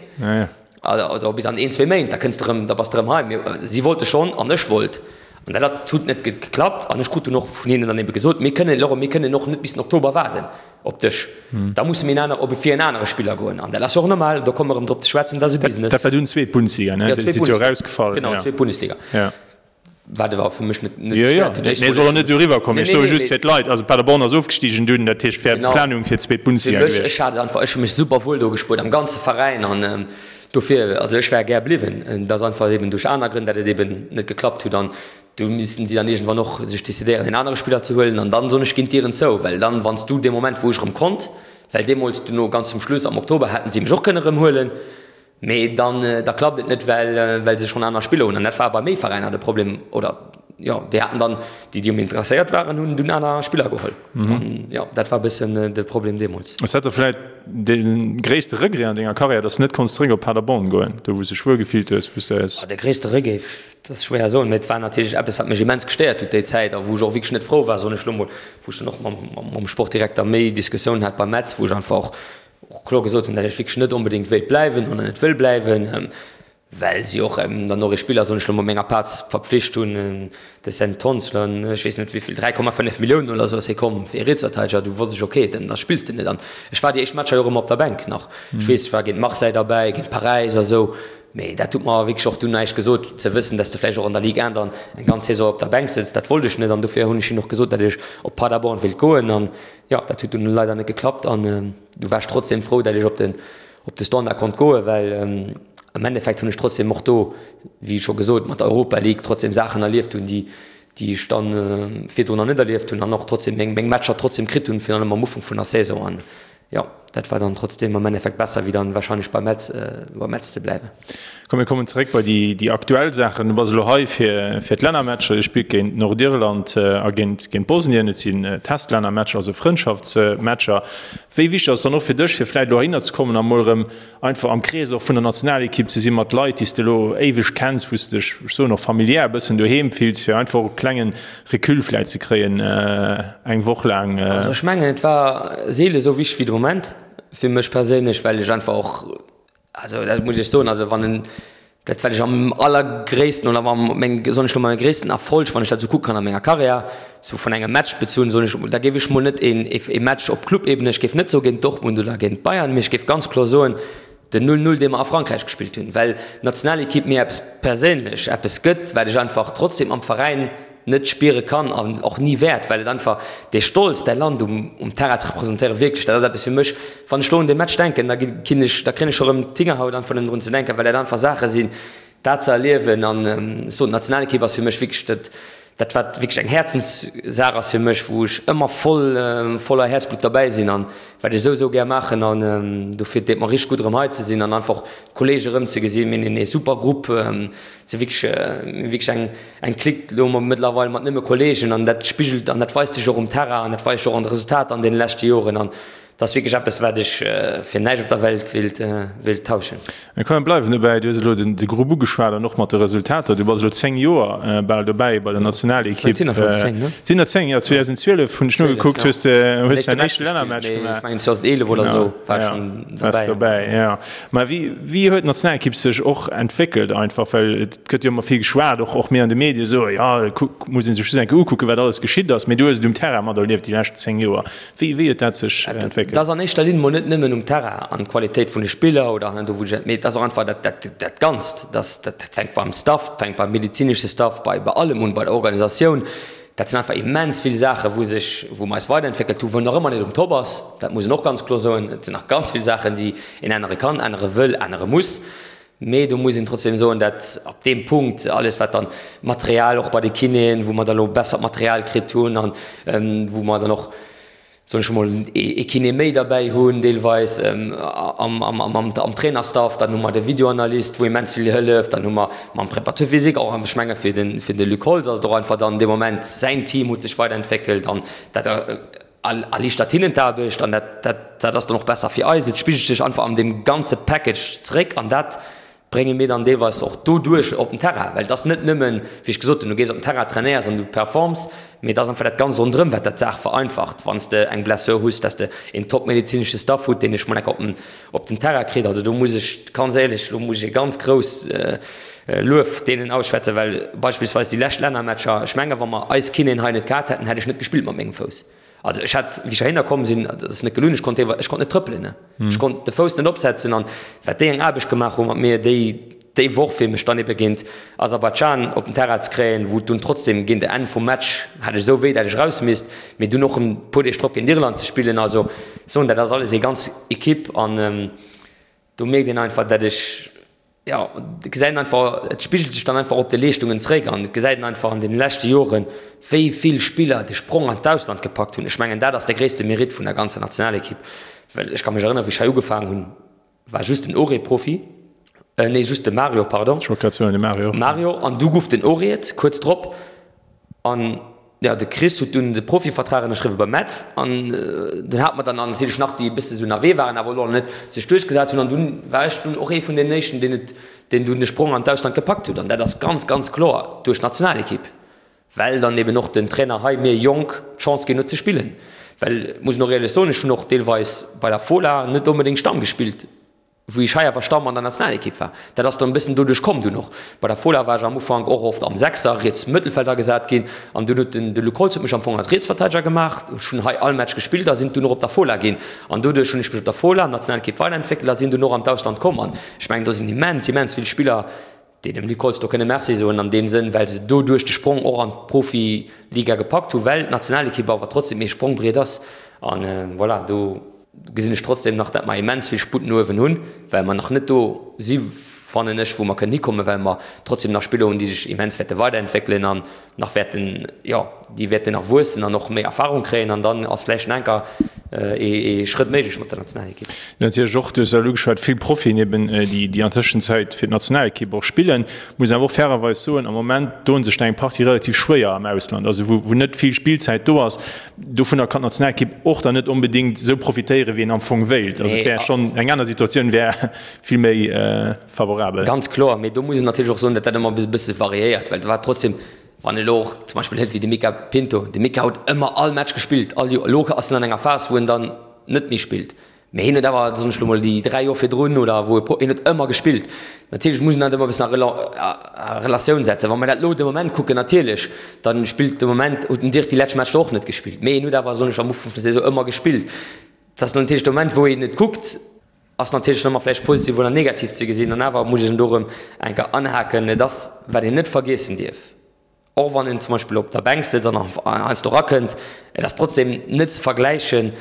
also bis an een, zwee Méint, da kënns de erëm, da bass de erëm hei. Mee si wollte schonn an ech wollt. An dat huet net geklappt. An ech krut dunn och vun hinnen dann ebe gesot, mir kënnen, Laurent, mir kënnen och net bis den Oktober waarden. Op dech. Da musse mir en aner, op fir en anere Spiller goen. An dat ass jo och normal, do komme mer erëm drop ze schwätzen, dat ass e Business. Dat war dunn zweet Bundesliga, ne? Jo, zweet Bundesliga. Erausgefall. Genau, zweet Bundesliga. Ja. Wat awer fir mech net, net gestéiert huet. Jo, jo, nee, soll och net esou eriwwerkommen. Ech soe just fir d'Leit, also Paderborn ass ofgestigen dunn, dat heescht wär d'Planung fir d'zweet Bundesliga gewiescht. Fir mech, ech hat et einfach, ech hu mech super wuel do gespuert, am ganze Veräin an dofir, also ech wär gär bliwwen. Et ass einfach eben duerch aner Grënn, dat et eben net geklappt huet an Do missten si dann iergendwann och sech decidéieren, een anere Spiller ze huelen. An dann, soen ech, ginn d'Dieren zou. Well dann, wann s du dee Moment, wou ech erëm konnt, well deemools duerno ganz zum Schluss am Oktober hätten si mech och kënne erëm huelen, mee dann, da klappt et net, well, well se schonn aner Spiller hunn. An dat war bei méi Veräiner de Problem, oder jo, déi haten dann, déi, déi um interesséiert waren, hunn dunn aner Spiller geholl. An jo, dat war e bëssen de Problem deemools. Ass dat da vläicht de gréisste Regret an denger Karriär, dass de net konns zeréck op Paderborn goen, do wou s de dech wuel gefillt hues, wou s de. De gréisste Regret, Dat ass schwéier soen, mee et war natierlech eppes, wat mech immens gestéiert huet déi Zäit a wou ech och wierklech net frou war, soen ech elo mol, wou ech dann och mam Sportdirekter méi Diskussiounen hat beim Metz, wou ech einfach och kloer gesot hunn, datt ech wierklech net onbedéngt wéilt bleiwen oder net wëll bleiwen, well si och dann och ee Spiller, soen ech elo mol, menger Plaz verpflicht hunn, de Sven Tonsler, ech weess net wéi vill, 3,5 Milliounen oder esou ass hie komm fir ee Rietsverteideger, du wosst ech, okay, dann da spills de net. An ech war déi éischt Matcher jo och ëmmer op der Bänk nach, ech weess, ech war géint Marseille derbäi, géint Paräis a sou. Mee dat huet mer wierklech och dunn näischt gesot, ze wëssen, dass de vläicht och an der Ligue 1 dann eng ganz Saison op der Bänk sëtz. Dat wollt ech net an dofir hunn ech hinnen och gesot, datt ech op Paderborn wéilt goen. An jo, dat huet dunn leider net geklappt an du war ech trotzdem frou, datt ech op den, op de Standard konnt goen, well am Endeffekt hunn ech trotzdem och do, wéi scho gesot, mat der Europa League trotzdem Saachen erlieft hunn, déi, déi ech dann virdrun nach net erlieft hunn an och trotzdem meng, meng Matcher trotzdem kritt hunn, virun allem am Ufank vun der Saison. An Jo, dat war dann trotzdem am Endeffekt besser wéi dann wahrscheinlech bei Metz, bei Metz ze bleiwen. Komm mir kommen zeréck bei déi, déi aktuell Saachen. Du bass elo hei fir, fir d'Lännermatcher. Dir spillt géint Nordirland a géint, géint Bosnien. Et sinn Testlännermatcher, also Frëndschaftsmatcher. Wéi wichteg ass et dann och fir dech, fir vläicht elo heihinner ze kommen a mol erëm einfach am Krees och vun der Nationalekipp ze sinn, mat Leit, déi s de elo éiweg kenns, wou s de dech, ech soen och familiär e bëssen doheem fills, fir einfach och e klengen Recul vläicht ze kréien eng Woch laang? Also ech mengen, et war seele sou wichteg wéi de Moment fir mech perséinlech, well ech einfach och, also dat muss ech soen, also wann en Dat wat ech am allergréissten oder am meng soen ech lo mol gréissten Erfolg, wann ech dat sou kucke kann a menger Karriär, sou vun engem Match bezunn, soen ech, da géif ech mol net een ee Match op Clubebene, ech géif net soe géint Dortmund oder géint Bayern, mee ech géif ganz kloer soen, den 0, 0 dee mer a Frankräich gespillt hunn, well d'Nationalekipp mir eppes perséinlech eppes gëtt, wat ech einfach trotzdem am Veräin net spiere kann an och ni wäert, well et einfach dee Stolz, däi Land um um Terrain ze representéieren, wierklech, dat ass eppes fir mech, wann ech lo un dee Match denken, da ginn ech, da kréien ech scho rëm d'Hingerhaut einfach nëmmen drun ze denken, well dat einfach Saache sinn, dat ze erliewen an ech soen, d'Nationalekipp ass fir mech wierklech dat, dat wat wierklech eng Häerzenssaach ass fir mech, wou ech ëmmer voll, voller Häerzblutt derbäi sinn an wat ech esou, esou gär maachen an dofir deet mer richteg gutt erëm hei ze sinn an einfach d'Kollege erëm ze gesinn. Mir hunn ee super Grupp, et si wierklech, wierklech eng, eng Clique elo mëttlerweil mat nëmme Kollegen an dat spigelt an dat weist sech och um Terrain an dat weist sech och an de Resultater an deene leschte Joren an dat ass wierklech eppes, wat ech fir näischt op der Welt wéilt, wéilt tauschen. Komm mir bleiwen dobäi, du hues elo de Grupp ugeschwat an och mat de Resultater. Du bass elo 10 Joer bal dobäi bei der Nationalekipp. Et sinn der schonn 10, ne? Et sinn der 10, jo. 2012 hunn ech nogekuckt, hues de hues däin éischte Lännermatch gemaach. Ech mengen 2011 oder esou war ech schonn dobäi. Dobäi, jo. Mä wéi, wéi huet d'Nationalekipp sech och entwéckelt einfach? Well et gëtt jo ëmmer vill geschwat, och, och mir an de Medie soe jo, kuck, muss ee sech just eng Kéier ukucken, wat alles geschitt ass. Mee du hues et um Terrain materlieft déi lescht 10 Joer. Wéi wéi huet dat sech entwéckelt? Dat ass an éischter Linn mol net nëmmen um Terrain an d'Qualitéit vun de Spiller oder an do wou ech, mee et ass och einfach dat dat dat Ganzt. Dat dat fänkt beim Staff, fänkt beim medezinesche Staff, bei bei allem un, bei der Organisatioun. Dat sinn einfach immens vill Saachen, wou sech, wou mer eis weiderentwéckelt hunn, wou nach ëmmer net um Top ass, dat muss een och ganz kloer soen. Et sinn nach ganz vill Saachen, déi een ännere kann, ännere wëll, ännere muss. Mee do muss een trotzdem soen, dat op deem Punkt alles, wat dann Material och bei de Kinéen, wou mer da lo bessert Material kritt hunn an wou mer dann och, soen ech emol, ee Kiné méi derbäi hunn deelweis am Trainerstaff, dann hu mer de Videoanalyst, wou immens vill hëlleft, dann hu mer mam Préparateur physique och, ech menge fir de Luc Holtz ass et och einfach dann dee Moment, säin Team huet sech weiderentwéckelt an dat erliichtert hinnen d'Aarbecht an dat dat ass dann och besser fir eis. Et spigelt sech einfach an deem ganze Package zeréck an dat brénge mir dann deelweis och doduerch op den Terrain, well et ass net nëmmen, wéi ech gesot hunn, du gees op den Terrain, trainéiers an du performs, mee et ass einfach dat Ganzt ronderëm, wat dat d'Saach vereinfacht, wann s de eng Blessure hues, dass de een top-medezinesche Staff hutt, deen dech mol enk op den, op den Terrain kritt. Also do muss ech ganz éierlech, lo muss ech e ganz grouss Luef deenen ausschwätzen, well beispillsweis déi lescht Lännermatcher, ech menge wa mer eis Kinéen hei net gehat hätten, hätt ech net gespillt mat mengem Fouss. Also ech hat, wéi ech heihinner komm sinn, dat ass net gelunn, ech konnt ech konnt net trëppelen, ne. Ech konnt de Fouss net opsetzen an wat déi eng Aarbecht gemaach hu mat mir déi déi Woch, fir mech dann ebe géint Aserbaidschan op den Terrain ze kréien, wou et dunn trotzdem géint e Enn vum Match hat ech esou wéi, dat ech eraus misst, mee dunn och e puer Deeg drop géint Irland ze spillen. Also soen, dat ass alles ee ganz Equipe an do mierkt een einfach, dat ech, Jo, et gesäit een einfach, et spigelt sech dann einfach op de Leeschtungen zeréck an et gesäit een einfach an deene leschte Joren, wéi vill Spiller de Sprong an d'Ausland gepackt hunn. Ech mengen, dat ass de gréisste Meritt vun der ganzer Nationalekipp, well ech ka mech erënneren, wéi ech hei ugefaangen hunn, war just den Auré Profi, nee, just de Mario, pardon. Ech wollt grad soen, de Mario. Mario, an du guff den Auré et kuerz drop an. Jo, de Chris huet dunn de Profivertrag ënnerschriwwe bei Metz an dunn hate mer dann natierlech nach déi e bësse sou ënnerwee waren, awer elo nach net sech duerchgesat hunn an dunn war ech dunn och ee vun deenen éischten, deen et, deen dunn de Sprong an d'Ausland gepackt huet an dat ass ganz, ganz kloer duerch d'Nationalekipp, well dann eben och den Trainer hei mir Jonk d'Chance ginn huet ze spillen, well, muss een och éierlech soen, ech hunn och deelweis bei der Fola net onbedéngt Stamm gespillt. Wou ech hei awer Stamm an der Nationalekipp war. Dat ass dann e bëssen doduerch komm dunn och. Bei der Fola war ech am Ufank och oft am Sechser, riets Mëttelfeld agesat ginn an dunn huet den de Luc Holtz huet mech am Fong als Rietsverteideger gemaach. Ech hunn hei all Match gespillt a sinn dunn och op der Fola ginn an doduerch hunn ech mech op der Fola, Nationalekipp weiderentwéckelt a sinn dunn och an d'Ausland komm an ech mengen do sinn immens, immens vill Spiller, déi dem Luc Holtz do kënne Merci soen an deem Sënn, well se doduerch de Sprong och an d'Profiliga gepackt hunn, well d'Nationalekipp awer trotzdem ee Sprongbriet ass an voilà, do gesinn ech trotzdem nach, dat mer immens vill Sputt no uewen hunn, well mer nach net do si fannen ech, wou mer kënnen hikommen, well mer trotzdem nach Spiller hunn, déi sech immens wäerte weiderentwéckelen an nach wäerten, jo, déi wäerten nach wuessen an och méi Erfahrung kréien an dann ass vläicht nach enker ee Schrëtt méiglech mat der Nationalekipp. Natierlech och, du hues elo ugeschwat, vill Profien eben, déi an Tëschenzäit fir d'Nationalekipp och spillen. Muss een awer och fairerweis soen, am Moment doen sech der eng Partie relativ schwéier am Ausland, also wou net vill Spillzäit do ass. Dovunner kann d'Nationalekipp och dann net onbedéngt esou profitéieren, wéi een am Fong wéilt. Also et wär schonn eng aner Situatioun wär vill méi favorabel. Ganz kloer, mee do muss een natierlech och soen, datt dat ëmmer e bësse variéiert, well dat war trotzdem, wann een elo och zum Beispill hëlt wéi de Mica Pinto, de Mica huet ëmmer all Match gespillt, all Joer. Elo ass en an enger Phas, wou en dann net méi spillt, mee hien huet awer, soen ech elo mol, déi 3 Joer virdrun oder wou e Pro, hien huet ëmmer gespillt. Natierlech muss een dat ëmmer e bëssen a Relatioun setzen. Wa mer dat elo de Moment kucken, natierlech, da spillt de Moment, huet den Dirk déi lescht Matcher och net gespillt, mee hien huet awer, soen ech, am Ufank vun der Saison ëmmer gespillt. Dat ass natierlech de Moment, wou een et kuckt, Ass natierlech ëmmer vläicht positiv oder negativ ze gesinn. An awer muss ech en do erëm eng Kéier anhaken, Et ass, wat een net vergiessen dierf, och wann een zum Beispill op der Bänk sëtzt an heiansdo erakënnt, et ass trotzdem net ze vergläichen,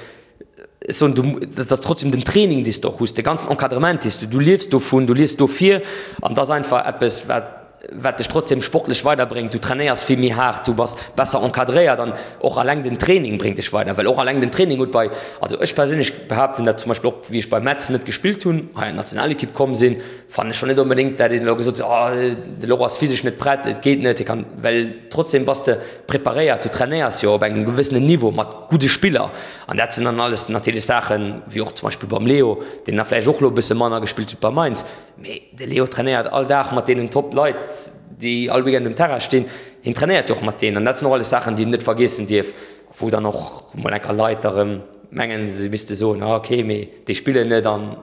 ech soen, du, dat ass trotzdem den Training, dee s de och hues, de ganzen Encadrement, dee s du, du liefs dovun, du liefs dofir an et ass einfach eppes, wat, wat dech trotzdem sportlech weiderbréngt, du trainéiers vill méi haart, du bass besser encadréiert an och alleng den Training bréngt dech weider, well och alleng den Training huet bei, also ech perséinlech behaapten dat zum Beispill och wéi ech bei Metz net gespillt hunn, hei an d'Nationalekipp komm sinn, fannen ech schonn net onbedéngt dat een elo gesot huet, oh de Laurent ass physesch net prett, et geet net, hie kann, well trotzdem bass de preparéiert, du trainéiers jo op engem gewëssenen Niveau mat gudde Spiller an dat sinn dann alles natierlech Saachen, wéi och zum Beispill beim Leo, deen da vläicht och elo e bësse manner gespillt huet bei Mainz, Mee de Leo trainéiert all Dag mat deenen Top Leit, déi all Weekend um Terrain stinn. Hien trainéiert jo och mat deenen. An dat sinn och alles Saachen, déi een net vergiessen dierf, wou dann och mol enker Leit erëm mengen, se misste soen, ah okay, mee déi spillen net an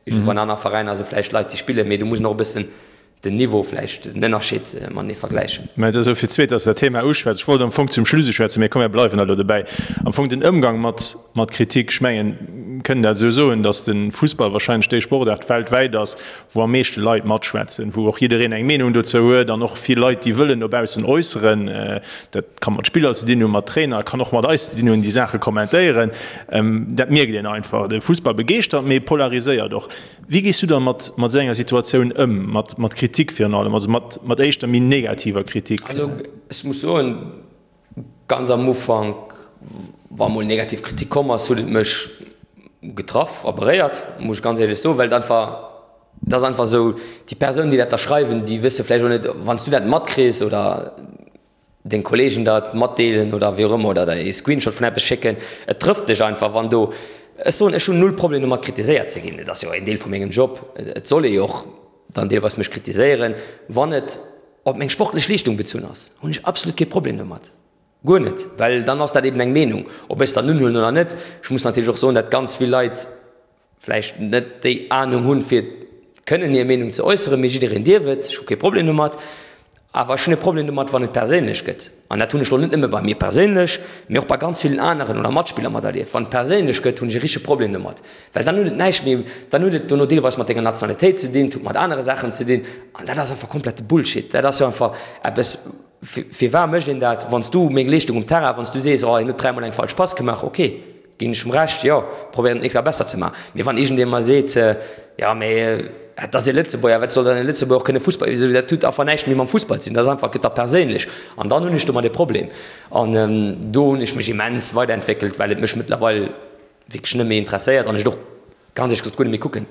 iergendwou an aner Veräiner si vläicht Leit, déi spillen. Mee do muss een och e bëssen den Niveau vläicht, den Ënnerscheed matenee vergläichen. Mä et ass elo fir d'zweet, dass de dat Thema uschwätz. Ech wollt am Fong zum Schluss uschwätzen, mee komm, mir bleiwen elo dobäi. Am Fong den Ëmgang mat Kritik, ech mengen. kënnen dat esou soen, datt de Fussball wahrscheinlech déi Sportaart weltwäit ass, wou am meeschte Leit matschwätzen, wou och jiddereen eng Meenung dozou huet an och vill Leit, déi wëllen no baussen äusseren. Dat ka mat Spiller ze dinn hunn, mat Trainer, kann och mat eis ze dinn hunn, déi Saache kommentéieren. Dat mierkt een einfach. De Fussball begeeschtert, mee polariséiert och. Wéi gees du da mat esou enger Situatioun ëm, mat Kritik virun allem, also mat éischter méi negativer Kritik? Also ech muss soen, ganz am Ufank, wa mol negativ Kritik komm ass, huet et mech getraff a beréiert, muss ech ganz éierlech soen, well et einfach, et ass einfach esou, déi Persoun, déi dat da schreiwen, déi wësse vläicht och net, wann s du dat matkriss oder deng Kollegen dat matdeelen oder wéi och ëmmer oder der ee Screenshot vun eppes schécken, et trëfft dech einfach, wann do, ech soen, ech hunn null Problem domat kritiséiert ze ginn, et ass jo en Deel vu mengem Job, et soll ee jo och dann deelweis mech kritiséieren, wann et op meng sportlech Leeschtung bezunn ass, hunn ech absolut kee Problem domat, guer net, well dann ass dat eben eng Meenung, ob ech se dann unhuelen oder net. Ech muss natierlech och soen, dat ganz vill Leit vläicht net déi Anung hunn, fir kënnen hir Meenung ze äusseren, mee jiddereen dierf et, ech hu kee Problem domat. Awer ech hunn e Problem domat, wann et perséinlech gëtt. An dat hunn ech elo net nëmme bei mir perséinlech, mee och bei ganz villen aneren oder Matspiller materlieft. Wann et perséinlech gëtt, hunn ech e richtege Problem domat, well dann huet et näischt méi, dann huet et dono deelweis mat denger Nationalitéit ze dinn, et huet mat anere Saachen ze dinn an dat ass einfach komplette Bullshit. Dat ass jo einfach eppes, firwat mécht een dat? Wann s du meng Leeschtung um Terrain, wann s du sees, oh hien huet dräimol eng falsch Pass gemaach, okay. Ginn ech em Recht, jo, probéieren et nächst Kéier besser ze maachen. Mee wann iergendee mer seet, jo, mee et ass ee Lëtzebuerger, wat soll dann e Lëtzebuerger och kënne Fussball, dat huet einfach näischt méi mam Fussball ze dinn, dat ass einfach, gëtt da perséinlech. An dann hunn ech domat e Problem. An do hunn ech mech immens weiderentwéckelt, well et mech mëttlerweil wierklech net méi interesséiert an ech et och ganz éierlech gesot guer net méi kucken.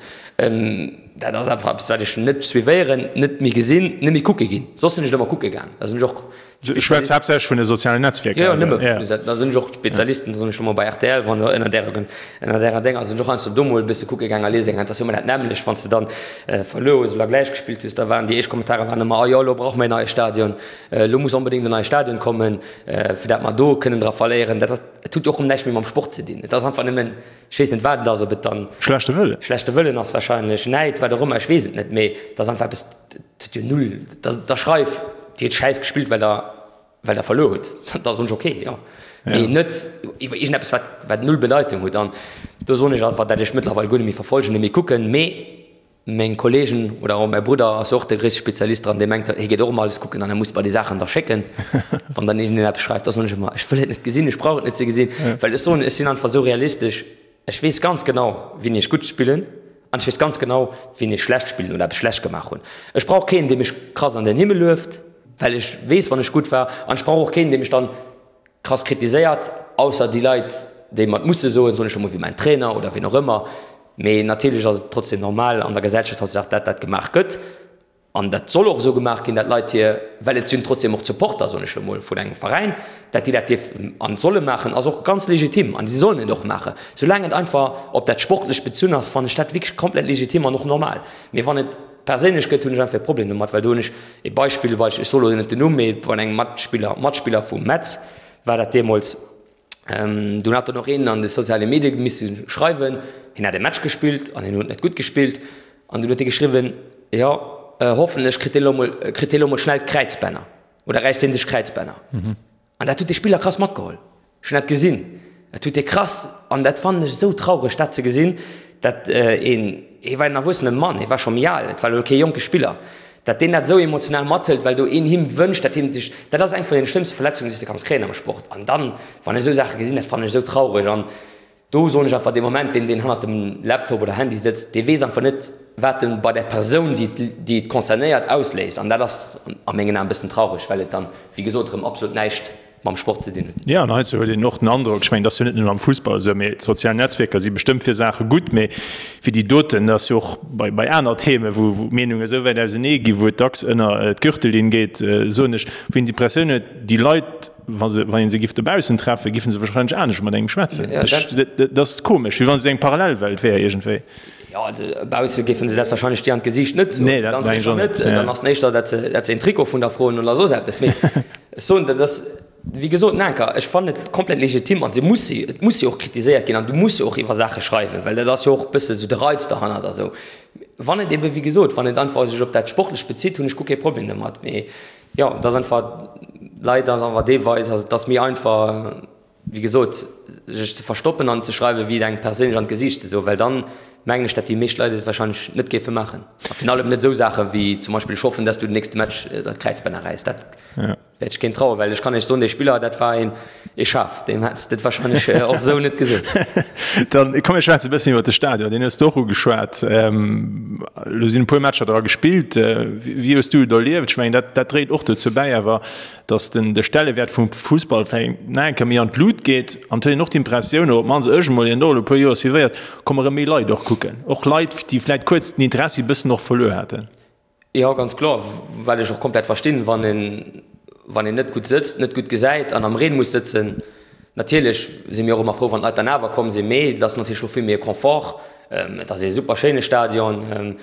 Dat ass einfach eppes, wat ech net suivéieren, net méi gesinn, net méi kucke ginn. Soss sinn ech et ëmmer kucke gaang. Da sinn ech och. Du schwätz haaptsächlech vun de sozialen Netzwierker. Jo, jo, nëmme vun de. Da sinn ech och Spezialisten, da sinn ech ëmmer bei rtl, wann ënner därer, ënner därer Dénger sinn ech och heiansdo do mol e bësse kucke gaang a liese gaang. Et ass jo ëmmer dat nämmlecht, wann s de dann verluer hues oder gläich gespillt hues, da waren déi éischt Kommentare waren ëmmer, Oh jo, elo brauche mer een neie Stadion, elo muss onbedéngt en neie Stadion kommen, fir dat mer do kënnen dra verléieren. Dat ass, et huet jo och erëm näischt méi mam Sport ze dinn. Et ass einfach nëmmen. Ech weess net, wat et ass, ob et dann. Schlechte Wëllen. Schlechte Wëllen ass wahrscheinlech, Näid, wat och ëmmer, ech weess et net, mee et ass einfach eppes, et huet jo null, da, da schreif, Dir hutt schäiss gespillt, well Der, well Der verluer hutt, da soen ech ok, jo, mee net iwwer iergendeppes, wat, wat null Bedeitung huet. An do soen ech einfach, dat ech mëttlerweil guer net méi verfolgen, net méi kucken, mee Meng Kollegen oder och mäi Brudder ass jo och de gréisste Spezialist dran, dee mengt, hie geet och ëmmer alles kucken an e muss mer déi Saachen da schécken. Wann dann iergendeen eppes schreift, da soen ech ëmmer, ech wëll et net gesinn, ech brauch et net ze gesinn, well ech soen, ech sinn einfach esou realistesch, ech weess ganz genau, wien ech gutt spillen an ech weess ganz genau, wien ech schlecht spillen oder eppes schlecht gemaach hunn. Ech brauch keen, dee mech krass an den Himmel lueft, well ech weess, wann ech gutt war an ech brauch och keen, dee mech dann krass kritiséiert, ausser déi Leit, déi mer et musse soen, soen ech emol, wéi mäin Trainer oder wien och ëmmer. Mee natierlech ass et trotzdem normal an der Gesellschaft hautdesdaags, dat dat gemaach gëtt. An dat soll och esou gemaach ginn, dat Leit hir, well et sinn trotzdem och d'Supporter, soen ech emol, vun engem Veräin, dat déi dat dierfen an solle maachen, ass och ganz legitim an si sollen et och maachen. Soulaang et einfach op dat Sportlecht bezunn ass, fannen ech dat wierklech komplett legitim an och normal. Mee wann et perséinlech gëtt, hunn ech einfach e Problem domat, well do hunn ech e Beispill, ech soe lo net den Numm, mee vun engem Matspiller, Matspiller vu Metz war dat deemools, dunn hat dann och een an de soziale Medie misse schreiwen, hien hätt e Match gespillt an hien huet net gutt gespillt an dunn huet hie geschriwwen, jo hoffentlech kritt dee lo mol, kritt dee lo mol schnell d'Kräizbänner oder räisst dee sech d'Kräizbänner. An dat huet de Spiller krass matgeholl. Ech hunn dat gesinn. Et huet ee krass, an dat fannen ech esou traureg, dat ze gesinn, dat een, hie war en erwuessene Mann, hie war scho méi al, et war elo kee jonke Spiller, dat deen dat esou emotional mathëlt, well do een him wënscht, dat hien sech, dat ass eng vun den schlëmmste Verletzungen, déi s de kanns kréien am Sport. An dann, wann ech esou Saache gesinn, dat fannen ech esou traureg. An Do soen ech einfach, dee Moment, deen, deen hannert dem Laptop oder Handy sëtzt, dee weess einfach net, wat en bei där Persoun, déi, déi et concernéiert, ausléist. An dat ass a mengen Aen e bëssen traureg, well et dann, wéi gesot, erëm absolut näischt mam Sport ze dinn huet. Jo, an heizou huet een och den Androck, ech mengen, dat ass jo net nëmmen am Fussball esou, mee d'sozial Netzwierker si bestëmmt fir Saache gutt, mee fir déi doten, dat ass jo och bei, bei aner Themen, wou, wou d'Meenunge esou wäit ausenee ginn, wou et dacks ënner d'Gürtellinn geet, soen ech, wou een d'Impressioun huet, déi Leit, Wa se, wann een se giff dobaussen treffen, giffen se wahrscheinlech anescht mat engem schwätzen. Ech, dat ass komesch, wéi wann se eng Parallelwelt wär iergendwéi. Jo, also bausse géifen se dat wahrscheinlech dir an d'Gesiicht net soen. Nee, dat mengen ech och net. Dann ass et éischter, dat se, dat se een Trikot vun der froen oder soss eppes. Mee ech soen, dat ass, wéi gesot, Nanker, ech fannen et komplett legitim an se muss, et muss jo och kritiséiert ginn an du muss jo och iwwer Saache schreiwen, well dat ass jo och e bësse sou de Reiz derhannert a sou. Wann et ebe, wéi gesot, wann et einfach sech op dat Sportlecht bezitt, hunn ech guer kee Problem domat. Mee Jo, et ass einfach, leider ass einfach deelweis, also et ass méi einfach. wéi gesot, sech ze verstoppen an ze schreiwen, wéi et engem perséinlech an d'Gesiicht ze soen, well dann mengen ech, dat déi meescht Leit et wahrscheinlech net géife maachen. A virun allem net esou Saache wéi zum Beispill, ech hoffen, dass du den nächste Match dat Kräizbänner räiss. Dat wäert ech keen trauen, well ech kann Iech soen, dee Spiller, dat war een ee Schaf, deem hätt s de et wahrscheinlech och esou net gesot. Dann komm mir schwätzen e bëssen iwwer de Stadion, deen hues de och ugeschwat. Elo sinn e puer Matcher dra gespillt. Wéi hues du et erlieft? Ech mengen, dat dat dréit och dozou bäi awer, datt den de Stellewäert vum Fussball vläicht nach eng Kéier méi an d'Lut geet. An et huet een och d'Impressioun, oder op d'mannst ech emol, deen och elo e puer Joer suivéiert, komme rëm méi Leit och kucken. Och Leit, déi vläicht kuerz den Interessi e bëssen och verluer haten. Jo, ganz kloer, wat ech och komplett verstinn, wann een, wann een net gutt sëtzt, net gutt gesäit an am Reen muss sëtzen. Natierlech si mir och ëmmer frou, wann d'Leit dann awer komm sinn, mee et ass natierlech och vill méi e Confort. Et ass ee super schéine Stadion.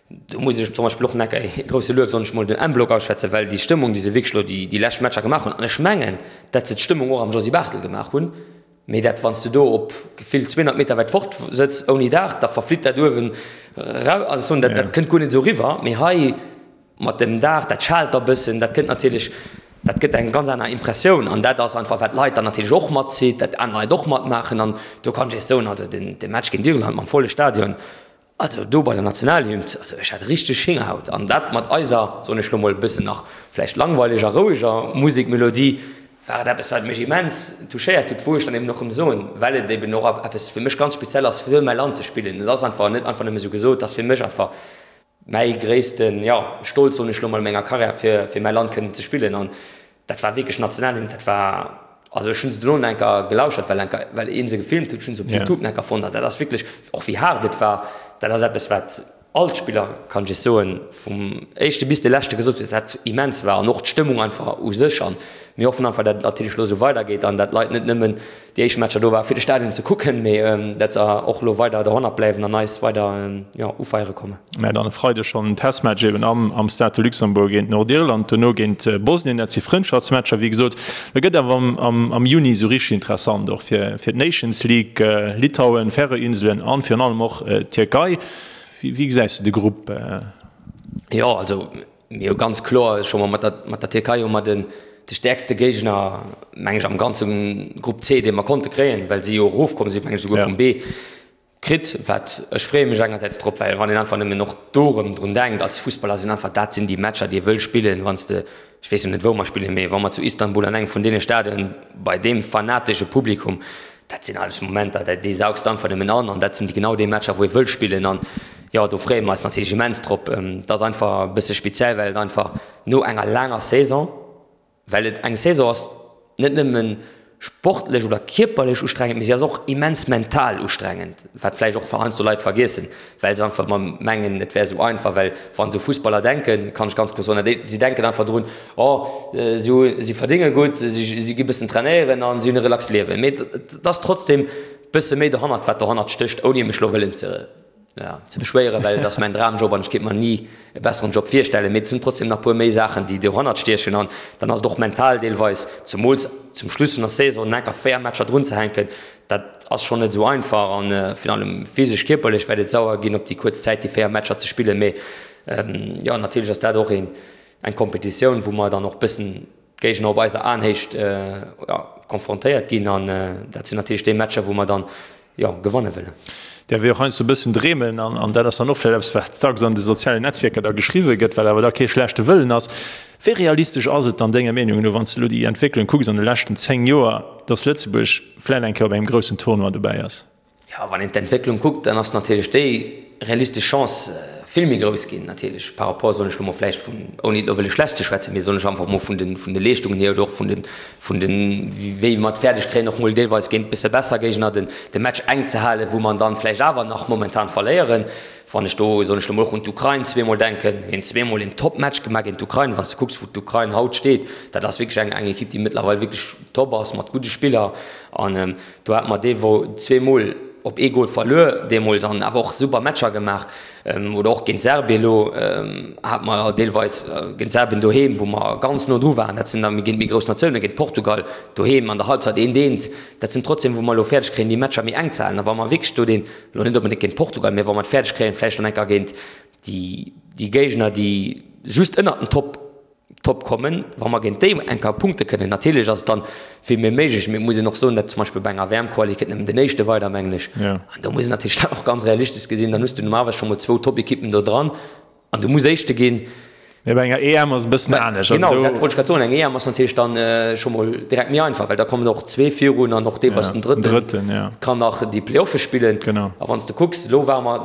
Do muss ech zum Beispill och nach e grousse Luef, soen ech mol, dem M-Block ausschwätzen, well déi Stëmmung, déi se wierklech elo déi, déi lescht Matcher gemaach hunn, an ech mengen, dat se d'Stëmmung och am Josy Barthel gemaach hunn, Mee dat, wann s de do op gefillt 200 Meter wäit fort sëtz ouni Daach, da verflitt dat uewen erau. Also ech soen, dat, dat kënnt guer net esou eriwwer. Mee hei mat dem Daach, dat schaalt da bëssen, dat kënnt natierlech, dat gëtt eng ganz aner Impressioun. An dat ass einfach, wat d'Leit dann natierlech och matzitt, dat aner Leit och matmaachen. An do kann ech iech soen, also den, de Match géint Irland mam volle Stadion, Also do bei der Nationalhymn, also ech hat richteg Héngerhaut an dat mat eiser, soen ech lo mol, e bëssen nach vläicht langweileger, roueger Musekmelodie, war et eppes wat mech immens touchéiert huet, wou ech dann eben och rëm soen, well et eben och eppes fir mech ganz speziell ass fir mäi Land ze spillen. Et ass einfach net einfach nëmme sou gesot, et ass fir mech einfach mäi gréissten, jo, Stolz, soen ech lo mol, a menger Karriär fir fir mäi Land kënnen ze spillen an Dat war wierklech Nationalhymn, dat war, also ech hunn se dono nach enker gelauschert, well enker, well een se gefilmt huet, ech hunn se op Youtube nach enker fonnt an dat ass wierklech, och wéi haart et war, dat ass eppes wat all d'Spiller, kann ech iech soen, vum éischte bis de leschte gesot huet, dat immens war an och d'Stëmmung einfach u sech an mir hoffen einfach, dat et natierlech elo esou weidergeet an dat d'Leit net nëmmen déi éischt Matcher do war fir de Stadion ze kucken, mee dat se och elo weider dohannert bleiwen an eis weider, jo, ufeiere kommen. Mä dann e Freideg schonn en Testmatch eben am am Stade de Luxembourg géint Nordirland, dono géint Bosnien. Dat si Frëndschaftsmatcher, wéi gesot. Da gëtt awer am am am Juni esou richteg interessant, och fir fir d'Nations League, Litauen, Färöer-Inselen an virun allem och d'Tierkei. Wéi wéi gesäis de de Grupp? Jo, also Mir hu ganz kloer scho mol mat der, mat der Tierkei hu mer den, de stäerkste Géigner, meng ech, am ganze Grupp C, dee mer konnte kréien, well si jo erofkomm sinn, meng ech esouguer vum B, kritt. Wat, ech freeë mech engersäits drop, well wann een einfach nëmmen och do erëm drun denkt, als Fussballer sinn einfach, dat sinn déi Matcher, déi ee wëll spillen, wann s de, ech weess jo net wou mer spillen, mee wa mer zu Istanbul an engem vun deene Stadionen bei deem fanatesche Publikum, Dat sinn alles Momenter, déi saugs de einfach nëmmen an an dat sinn genau déi Matcher, wou ee wëll spillen an jo, do freeë mer eis natierlech immens drop. Et ass einfach e bësse speziell, well et einfach no enger laanger Saison, well et eng Saison ass, net nëmme sportlech oder kierperlech ustrengend, mee si ass och immens mental ustrengend, wat vläicht och heiansdo Leit vergiessen, well se einfach ëmmer mengen, et wär esou einfach, well wa se u Fussballer denken, kann ech ganz kloer soen, si denken einfach drun, Oh, si hu, si verdénge gutt, si gi bëssen trainéieren an si hunn e relaxt Liewen. Mee et ass trotzdem bësse méi dohannert, wat dohannert stécht, ouni mech elo wëllen ze, ja, ze beschwéieren, well et ass mäin Dramjob an ech kéint mer ni e besseren Job virstellen. Mee et sinn trotzdem nach puer méi Saachen, déi dohannert stiechen an dann ass et och mental deelweis, zemools zum Schluss vun der Saison, enker 4 Matcher drunzehänken, dat ass schonn net esou einfach an virun allem physesch, kierperlech wäert et sauer ginn, op déi kuerz Zäit déi 4 Matcher ze spillen. Mee jo, natierlech ass dat och een, Eng Kompetitioun, wou mer dann och bëssen d'Géigner op eiser Aenhéicht konfrontéiert ginn an dat sinn natierlech déi Matcher, wou mer dann, jo, gewanne wëllen. Däerf ee och heiansdo e bëssen dreemen an dat ass dann och vläicht eppes, wat dacks an de sozialen Netzwierker da geschriwwe gëtt, wat awer da kee schlechte Wëllen ass. Wéi realistesch ass et dann denger Meenung no, wann s de elo déi Entwécklung kucks an de leschten 10 Joer, datt Lëtzebuerg vläicht eng Kéier op engem groussen Tournoi dobäi ass? Jo, wann een d'Entwécklung kuckt, dann ass natierlech déi realistesch Chance vill méi grouss ginn, natierlech par rapport, soen ech elo mol vläicht vun, ouni et elo wëlle schlecht ze schwätzen, mee soen ech einfach mol vun de, vun de Leeschtungen hier oder och vun de, vun de wéi mer et fäerdeg kréien och mol deelweis géint bësse besser Géigner den, de Match enk ze halen, wou mer dann vläicht awer nach momentan verléieren. Wann ech do, soen ech elo mol, och un d'Ukrain zweemol denken, mir hunn zweemol een Top-Match gemaach géint d'Ukrain, wann s de kucks wou d'Ukrain haut steet, dat ass wierklech eng, eng Ekipp déi mëttlerweil wierklech top ass mat gudde Spiller an, Do hate mer dee wou zweemol op ee Gol verluer deemools an awer och super Matcher gemaach. Oder och géint Serbien elo hate mer deelweis géint Serbien doheem, wou mer ganz no dru waren. Dat sinn da géint méi grouss Natiounen, géint Portugal doheem an der Halbzeit eent eent. Dat sinn trotzdem, wou mer elo fäerdeg kréien, déi Matcher méi enk ze halen. A wa mer wierklech do deen, elo net onbedéngt géint Portugal, mä wa mer et fäerdeg kréien, vläicht dann enker géint déi Géigner, déi just ënnert den Top. Top kommen, wa mer géint déi eng Kéier punkte kënnen. Natierlech ass et dann vill méi méiglech, mee et muss een och soen, datt zum Beispill bei enger WM-Quali kënnt nëmmen den Éischte weider, mengen ech. An do muss een natierlech dat och ganz realistesch gesinn. Dann hues du normalerweis scho mol zwou Top-Ekippen do dran an du muss Éischte ginn. Mee bei enger EM ass et e bëssen anescht. Genau, dat wollt ech grad soen. Eng EM ass natierlech dann scho mol direkt méi einfach, well da kommen och zwee virun an och deelweis den Drëtten kann nach déi Play-offe spillen. A wann s de kucks, elo ware mer,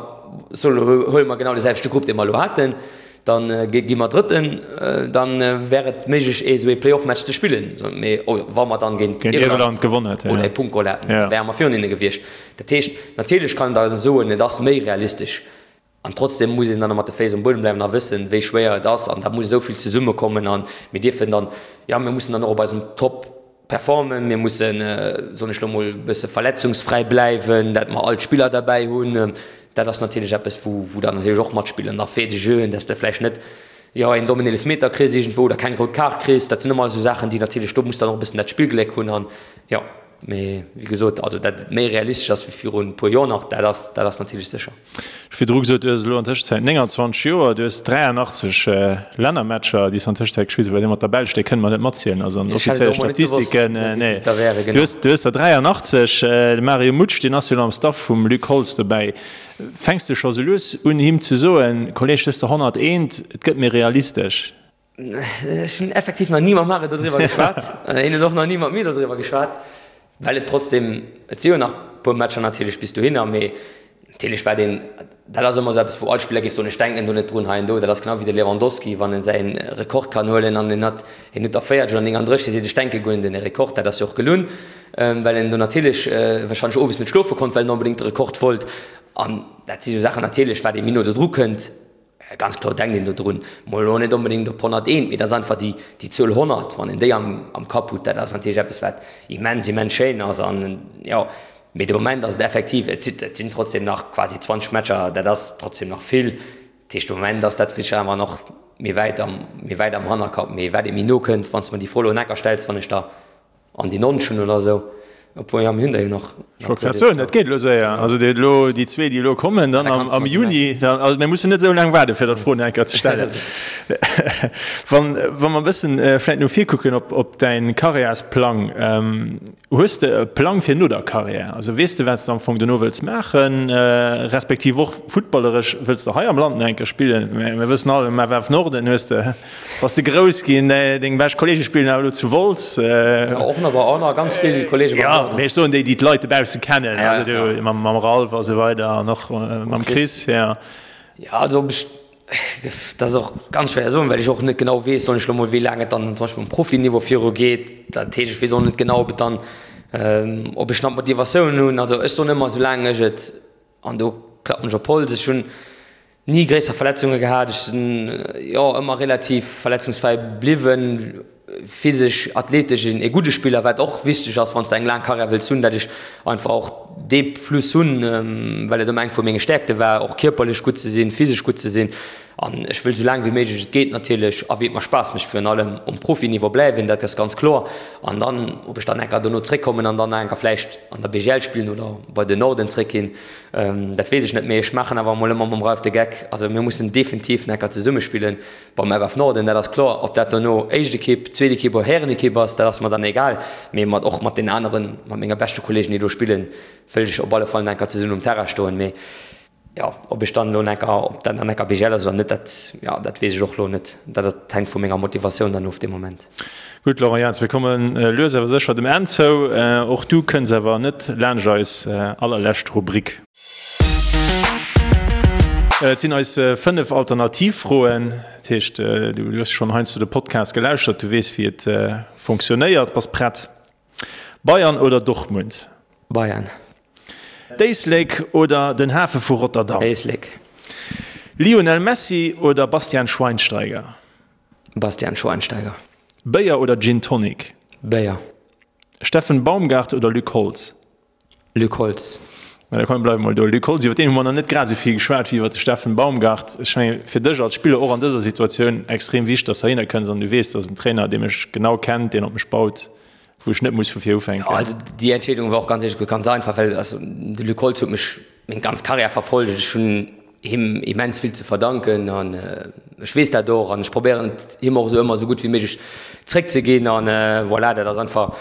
soe elo huele mer genau dee selwechte Grupp, dee mer elo haten, Dann gi mer Drëtten, dann wär et méiglech ee sou ee Playoff-Match ze spillen. Mee wa mer dann géint Irland gewonnen hätten oder ee Punkt geholl hätten, da wäre mer virun hinne gewiescht. Dat heescht, natierlech kann een da soen, et ass méi realistesch. An trotzdem muss een dann mat de Féiss um Buedem bleiwen a wëssen, wéi schwéier et ass. An da muss esou vill zesummekommen an mir dierfen dann, jo, mir mussen dann och op eisem Top performen. Mir mussen, soen ech lo mol, e bësse verletzungsfräi bleiwen, dat mer all d'Spiller derbäi hunn. Dat ass natierlech eppes, wou wou dann natierlech och matspillen. Da Faits de jeu, dass de vläicht net, jo, een dommen Eelefmeter kriss iergendwou oder keng rout Kaart kriss. Dat sinn ëmmer esou Saachen, déi natierlech, do muss dann och e bëssen dat Spillgléck hunn an, jo. Mee wéi gesot, also dat et méi realistesch ass wéi virun e puer Joer nach, dat ass, dat ass natierlech sécher. Ech hu virdru gesot, du hues elo an Tëschenzäit 29 Joer, du hues 83 Lännermatcher, déi s de an Tëschenzäit gespillt hues, well déi mat der Belsch, déi kënne mer net matzielen, also an den offizielle Statistiken, nee. Du hues, du hues der 83. De Mario Mutsch, deen ass jo elo am Staff vum Luc Holtz dobäi. Fänks de scho sou lues un, him ze soen, Kolleg, du hues der 101, et gëtt méi realistesch? Ech hunn effektiv nach ni mam Mario dodriwwer geschwat. Hien huet och nach ni mat mir dodriwwer geschwat, well et trotzdem, et si jo nach e puer Matcher natierlech bis dohinner, mee natierlech wat een, dat ass ëmmer esou eppes, wou all Spiller géif soen, ech denken do net drun hei an do. Dat ass genau wéi de Lewandowski, wann en säi Rekord kann huelen an en hat, hien huet der 40 oder 39, hie seet, ech denke guer net un de Rekord. Dat ass jo och gelunn, well en do natierlech warscheinlech owes net schlofe konnt, well en onbedéngt de Rekord wollt. An dat si sou Saachen natierlech, wat ee méi no dodru kënnt, Ganz kloer denkt een do drun, mol elo net onbedéngt op 101, mee dat ass einfach déi, déi Zuel 100, wann een déi am, am Kapp hutt, dat ass natierlech eppes, wat immens, immens schéin ass. An jo, mee de Moment ass et effektiv, et sinn, et sinn trotzdem nach quasi 20 Matcher, dat ass trotzdem nach vill. Dat heescht, de Moment ass dat vläicht awer nach méi wäit am, méi wäit am Hannerkapp. Mee wat ee méi no kënnt, wann s de mer déi Fro elo en Ecker stells, wann ech der An déi 90 hunn oder esou. Obwuel, jo, mir hunn der jo nach. Ech wollt grad soen, dat geet elo séier. Also déi elo, déi zwee, déi elo kommen, dann am, am Juni, dann, also mir mussen net esou laang waarden, fir der d'Fro nach eng Kéier ze stellen. Wann, wa mer e bëssen vläicht no vir kucken op, op däin Karriärsplang, hues de e Plang fir no der Karriär? Also weess de, wat s de am Fong dono wëlls maachen, respektiv och futtballeresch, wëlls de hei am Land nach eng Kéier spillen? Mir wëssen all, am FF Norden hues de. Bass de grouss ginn, deng bescht Kollege spillen awer elo zu Wolz. Jo, och nach, och nach ganz vill Kollege beim Norden. Jo, mee ech soen déi, déi d'Leit dobausse kennen, also du mam Ralph a sou weider an och mam Chris, jo. Jo, also ob ech, dat ass och ganz schwéier soen, well ech och net genau weess, soen ech elo mol, wéi laang et dann zum Beispill um Profiniveau viru geet. Dat heescht, ech weess och net genau, ob et dann, ob ech nach d'Motivatioun hunn. Also ech soen ëmmer, soulaang ech et, an do klappen ech op Holz, ech hunn Ni gréisser Verletzunge gehat, ech sinn jo ëmmer relativ verletzungsfräi bliwwen. Physesch, athletesch e gudde Spiller, wat och wichteg ass, wann s de eng laang Karriär wëlls hunn, dat ech einfach och dee Plus hunn, well et ëmmer eng vu menge Stäerkte war, och kierperlech gutt ze sinn, physesch gutt ze sinn. An ech wëll esou laang wéi méiglech et geet natierlech a wéi et mer Spaass mécht virun allem um Profiniveau bleiwen, dat ass ganz kloer. An dann, ob ech dann enker dono zréckkommen an dann nach enker vläicht an der BGL spillen oder bei den Norden zréckginn, Dat weess ech net, mee ech maachen awer emol ëmmer mam Ralph de Geck. Also mir mussen definitiv necker zesumme spillen beim FF Norden, dat ass kloer. Ob dat dono éischt Ekipp, zweet Ekipp oder Härenekipp ass, dat ass mer dann egal. Mee mat och mat den aneren, mat menge beschte Kollegen, déi do spillen, wëll ech op alle Fall necker zesummen um Terrain stoen. Mee jo, ob ech dann elo necker, ob dat dann necker BGL ass oder net, dat, jo, dat weess ech och elo net. Dat hänkt vu menger Motivatioun dann of dee Moment. Gutt, Laurent Jans, mir komme lues awer sécher dem Enn zou. Och du kënns awer net laanscht eis allerlescht Rubrik. Et sinn eis 5 Alternativfroen. Dat heescht, du hues schonn heiansdo de Podcast gelauschtert, du weess, wéi et fonctionnéiert. Bass prett? Bayern oder Dortmund? Bayern. D'Éislek oder den Hafe vu Rotterdam? Éislek. Lionel Messi oder Bastian Schweinsteiger? Bastian Schweinsteiger. Béier oder Gin Tonic? Béier. Steffen Baumgart oder Luc Holtz? Luc Holtz. Mä da komm, bleiwe mol do. Luc Holtz, iwwer deen hu mer nach net grad esou vill geschwat wéi iwwer de Steffen Baumgart. Ech mengen, fir dech als Spiller och an dëser Situatioun extrem wichteg, dass de heihinner kënns an du weess, dat ass en Trainer, dee mech genau kennt, deen op mech baut, wou ech net muss vu vir ufänken. Jo, also déi Entscheedung war och ganz éierlech gesot ganz einfach, well also de Luc Holtz huet mech meng ganz Karriär verfollegt. Ech hunn. him immens vill ze verdanken an ech weess dat och an ech probéieren et him och esou ëmmer esou gutt wéi méiglech zréckzeginn an voilà, dat ass einfach,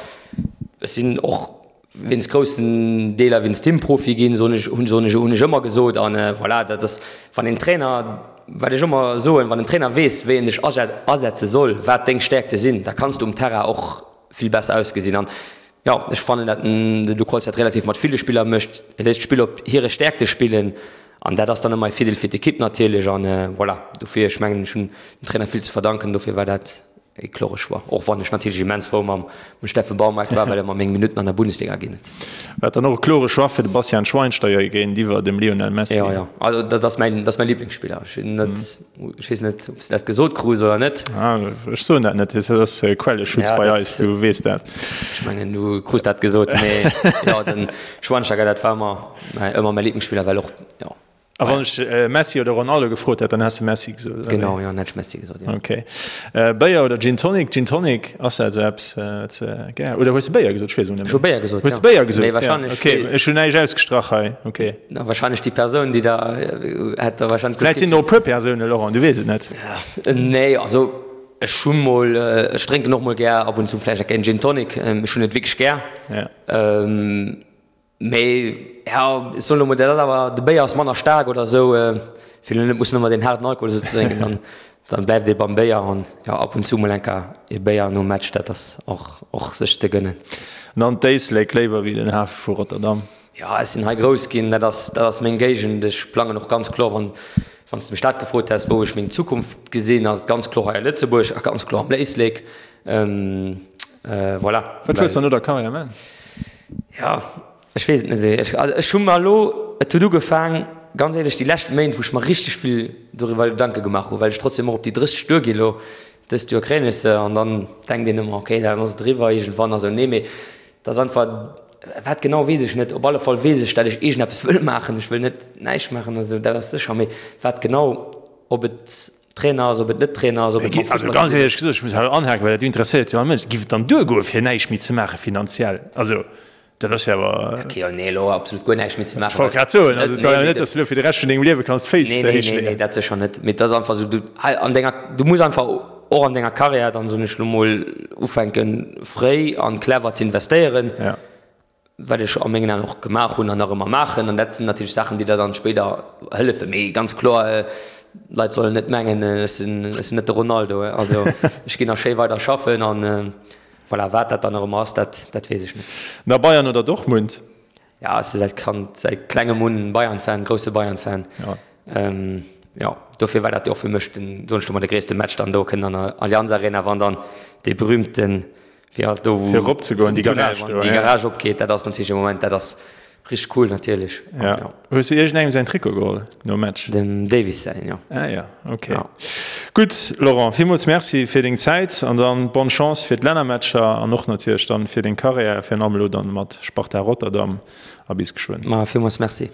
ech sinn och wéinst groussen Deeler wéinst him Profi ginn, soen ech, hunn soen ech, hunn ech ëmmer gesot an voilà, dat ass, wann een Trainer, wat ech ëmmer soen, wann en Trainer weess, wéi en dech asetze soll, wat deng Stäerkte sinn, da kanns du um Terrain och vill besser ausgesinn an jo, ech fannen dat den Luc Holtz dat relativ mat ville Spiller mécht, e léisst d'Spiller op hire Stäerkte spillen an dat ass dann ëmmer e Virdeel fir d'Ekipp natierlech an voilà, dofir, ech mengen ech hunn dem Trainer vill ze verdanken, dofir war dat e klore Choix, och wann ech natierlech immens frou mam Steffen Baumgart war, well e mer meng Minutten an der Bundesliga ginn huet. War dann och e klore Choix fir de Bastian Schweinsteiger géintiwwer dem Lionel Messi? Jo, jo, also dat ass mäin, dat ass mäi Liblingsspiller. Ech sinn net, ech weess net, ob s de dat gesot krus oder net. Ah, ech soen dat net, dat ass Quelleschutz bei eis, du weess dat. Ech mengen, du krus dat gesot, mee jo, den Schweinsteiger, dat war ëmmer, ëmmer mäi Liblingsspiller, well och, jo. A wann ech Messi oder Ronaldo gefrot hätt, dann häss de Messi gesot, oder wéi? Genau, jo, dann hätt ech Messi gesot, jo. Ok. Béier oder Gin Tonic? Gin Tonic, ass dat esou eppes, wat s de gär, oder hues de Béier gesot? Ech weess et net méi. Ech hu Béier gesot, jo. Hues de Béier gesot? Mee wahrscheinlech. Ok, ech hunn näischt ausgestrach hei, ok. Na, wahrscheinlech déi Persoun, déi da hätt da wahrscheinlech. Vläicht sinn der och e puer Persounen, Laurent, du weess et net. Nee, also ech hu mol, ech drénken och mol gär ab und zu vläicht eng Gin Tonic. Ech hunn et wierklech gär. Ja. Mee ja, ech soen elo mol, dat ass awer, de Béier ass manner staark oder esou, fir elo net mussen ëmmer deen haarden Alkohol esou ze drénken, dann, dann bleift ee beim Béier an jo, ab und zu mol eng Kéier ee Béier nom Match, dat ass och, och sech ze gënnen. An dann d'Éislek léiwer wéi den Hafe vu Rotterdam? Jo, ech sinn hei grouss ginn, dat ass, dat ass meng Géigend. Ech plangen och ganz kloer, wann, wann s de mech dat gefrot häss, wou ech meng Zukunft gesinn, ass et ganz kloer hei a Lëtzebuerg a ganz kloer am Éislek. Voilà. Wat wëlls de no der Karriär man? Jo, ech weess et net. Ech, also ech hu mer elo, et huet ugefaang, ganz éierlech, déi lescht Méint, wou ech mer richteg vill doriwwer Gedanke gemaach hu, well ech trotzdem och op déi 30 duergi elo. Dëst Joer kréien ech se an dann denkt een ëmmer, okay, dann ass et eriwwer iergendwann a sou. Nee, mee et ass einfach, wat genau weess ech net. Op alle Fall weess ech, dat ech iergendeppes wëll maachen. Ech wëll net näischt maachen a sou, dat ass sécher. Mee wat genau, ob et Trainer ass, ob et net Trainer ass, ob et mam Fussball. Also ganz éierlech gesot, ech muss hei anhaken, well dat interesséiert jo all Mënsch, Giff et dann duergoe fir näischt méi ze maache finanziell? Also dat ass jo awer. Okay, jo, nee, elo absolut guer näischt méi ze maachen. Ech wollt grad soen, also et ass jo net, datt s de elo fir de Rescht vun dengem Liewe kanns d'Féiss héich leeën. Nee, nee, nee, dat sécher net. Mee et ass einfach esou, du hei an denger, du muss einfach och an denger Karriär dann, soen ech elo mol, ufänken fréi an clever ze investéieren. Ja. wat ech a mengen Aen och gemaach hunn an nach ëmmer maachen. An dat sinn natierlech Saachen, déi der dann spéider hëllefen. Mee ganz kloer, d'Leit sollen net mengen, ech sinn, ech sinn net de Ronaldo. Also ech ginn nach schéi weider schaffen an voilà, wat dat dann nach ëmmer ass, dat, dat weess ech net. Na, Bayern oder Dortmund? Ja, ech si säit Kand, säit klengem un Bayern-Fan, grousse Bayern-Fan. Ja. Jo, dofir war dat jo och fir mech den, soen ech lo mol, de gréisste Match dann do kënnen an der Allianz Arena, wann dann dee berühmten Fir halt do Fir erop ze goen, déi Garage do, déi Garage opgeet, dat ass natierlech e Moment, dat ass richteg cool natierlech. Ja. Ja. Hues du iergendengem säin Trikot geholl nom Match? Dem Davies säin, jo. Ah ja, okay. Ja. Gutt, Laurent, villmools Merci fir deng Zäit an dann bonne Chance fir d'Lännermatcher an och natierlech dann fir deng Karriär, virun allem elo dann mat Sparta Rotterdam a bis geschwënn. Ma villmools Merci.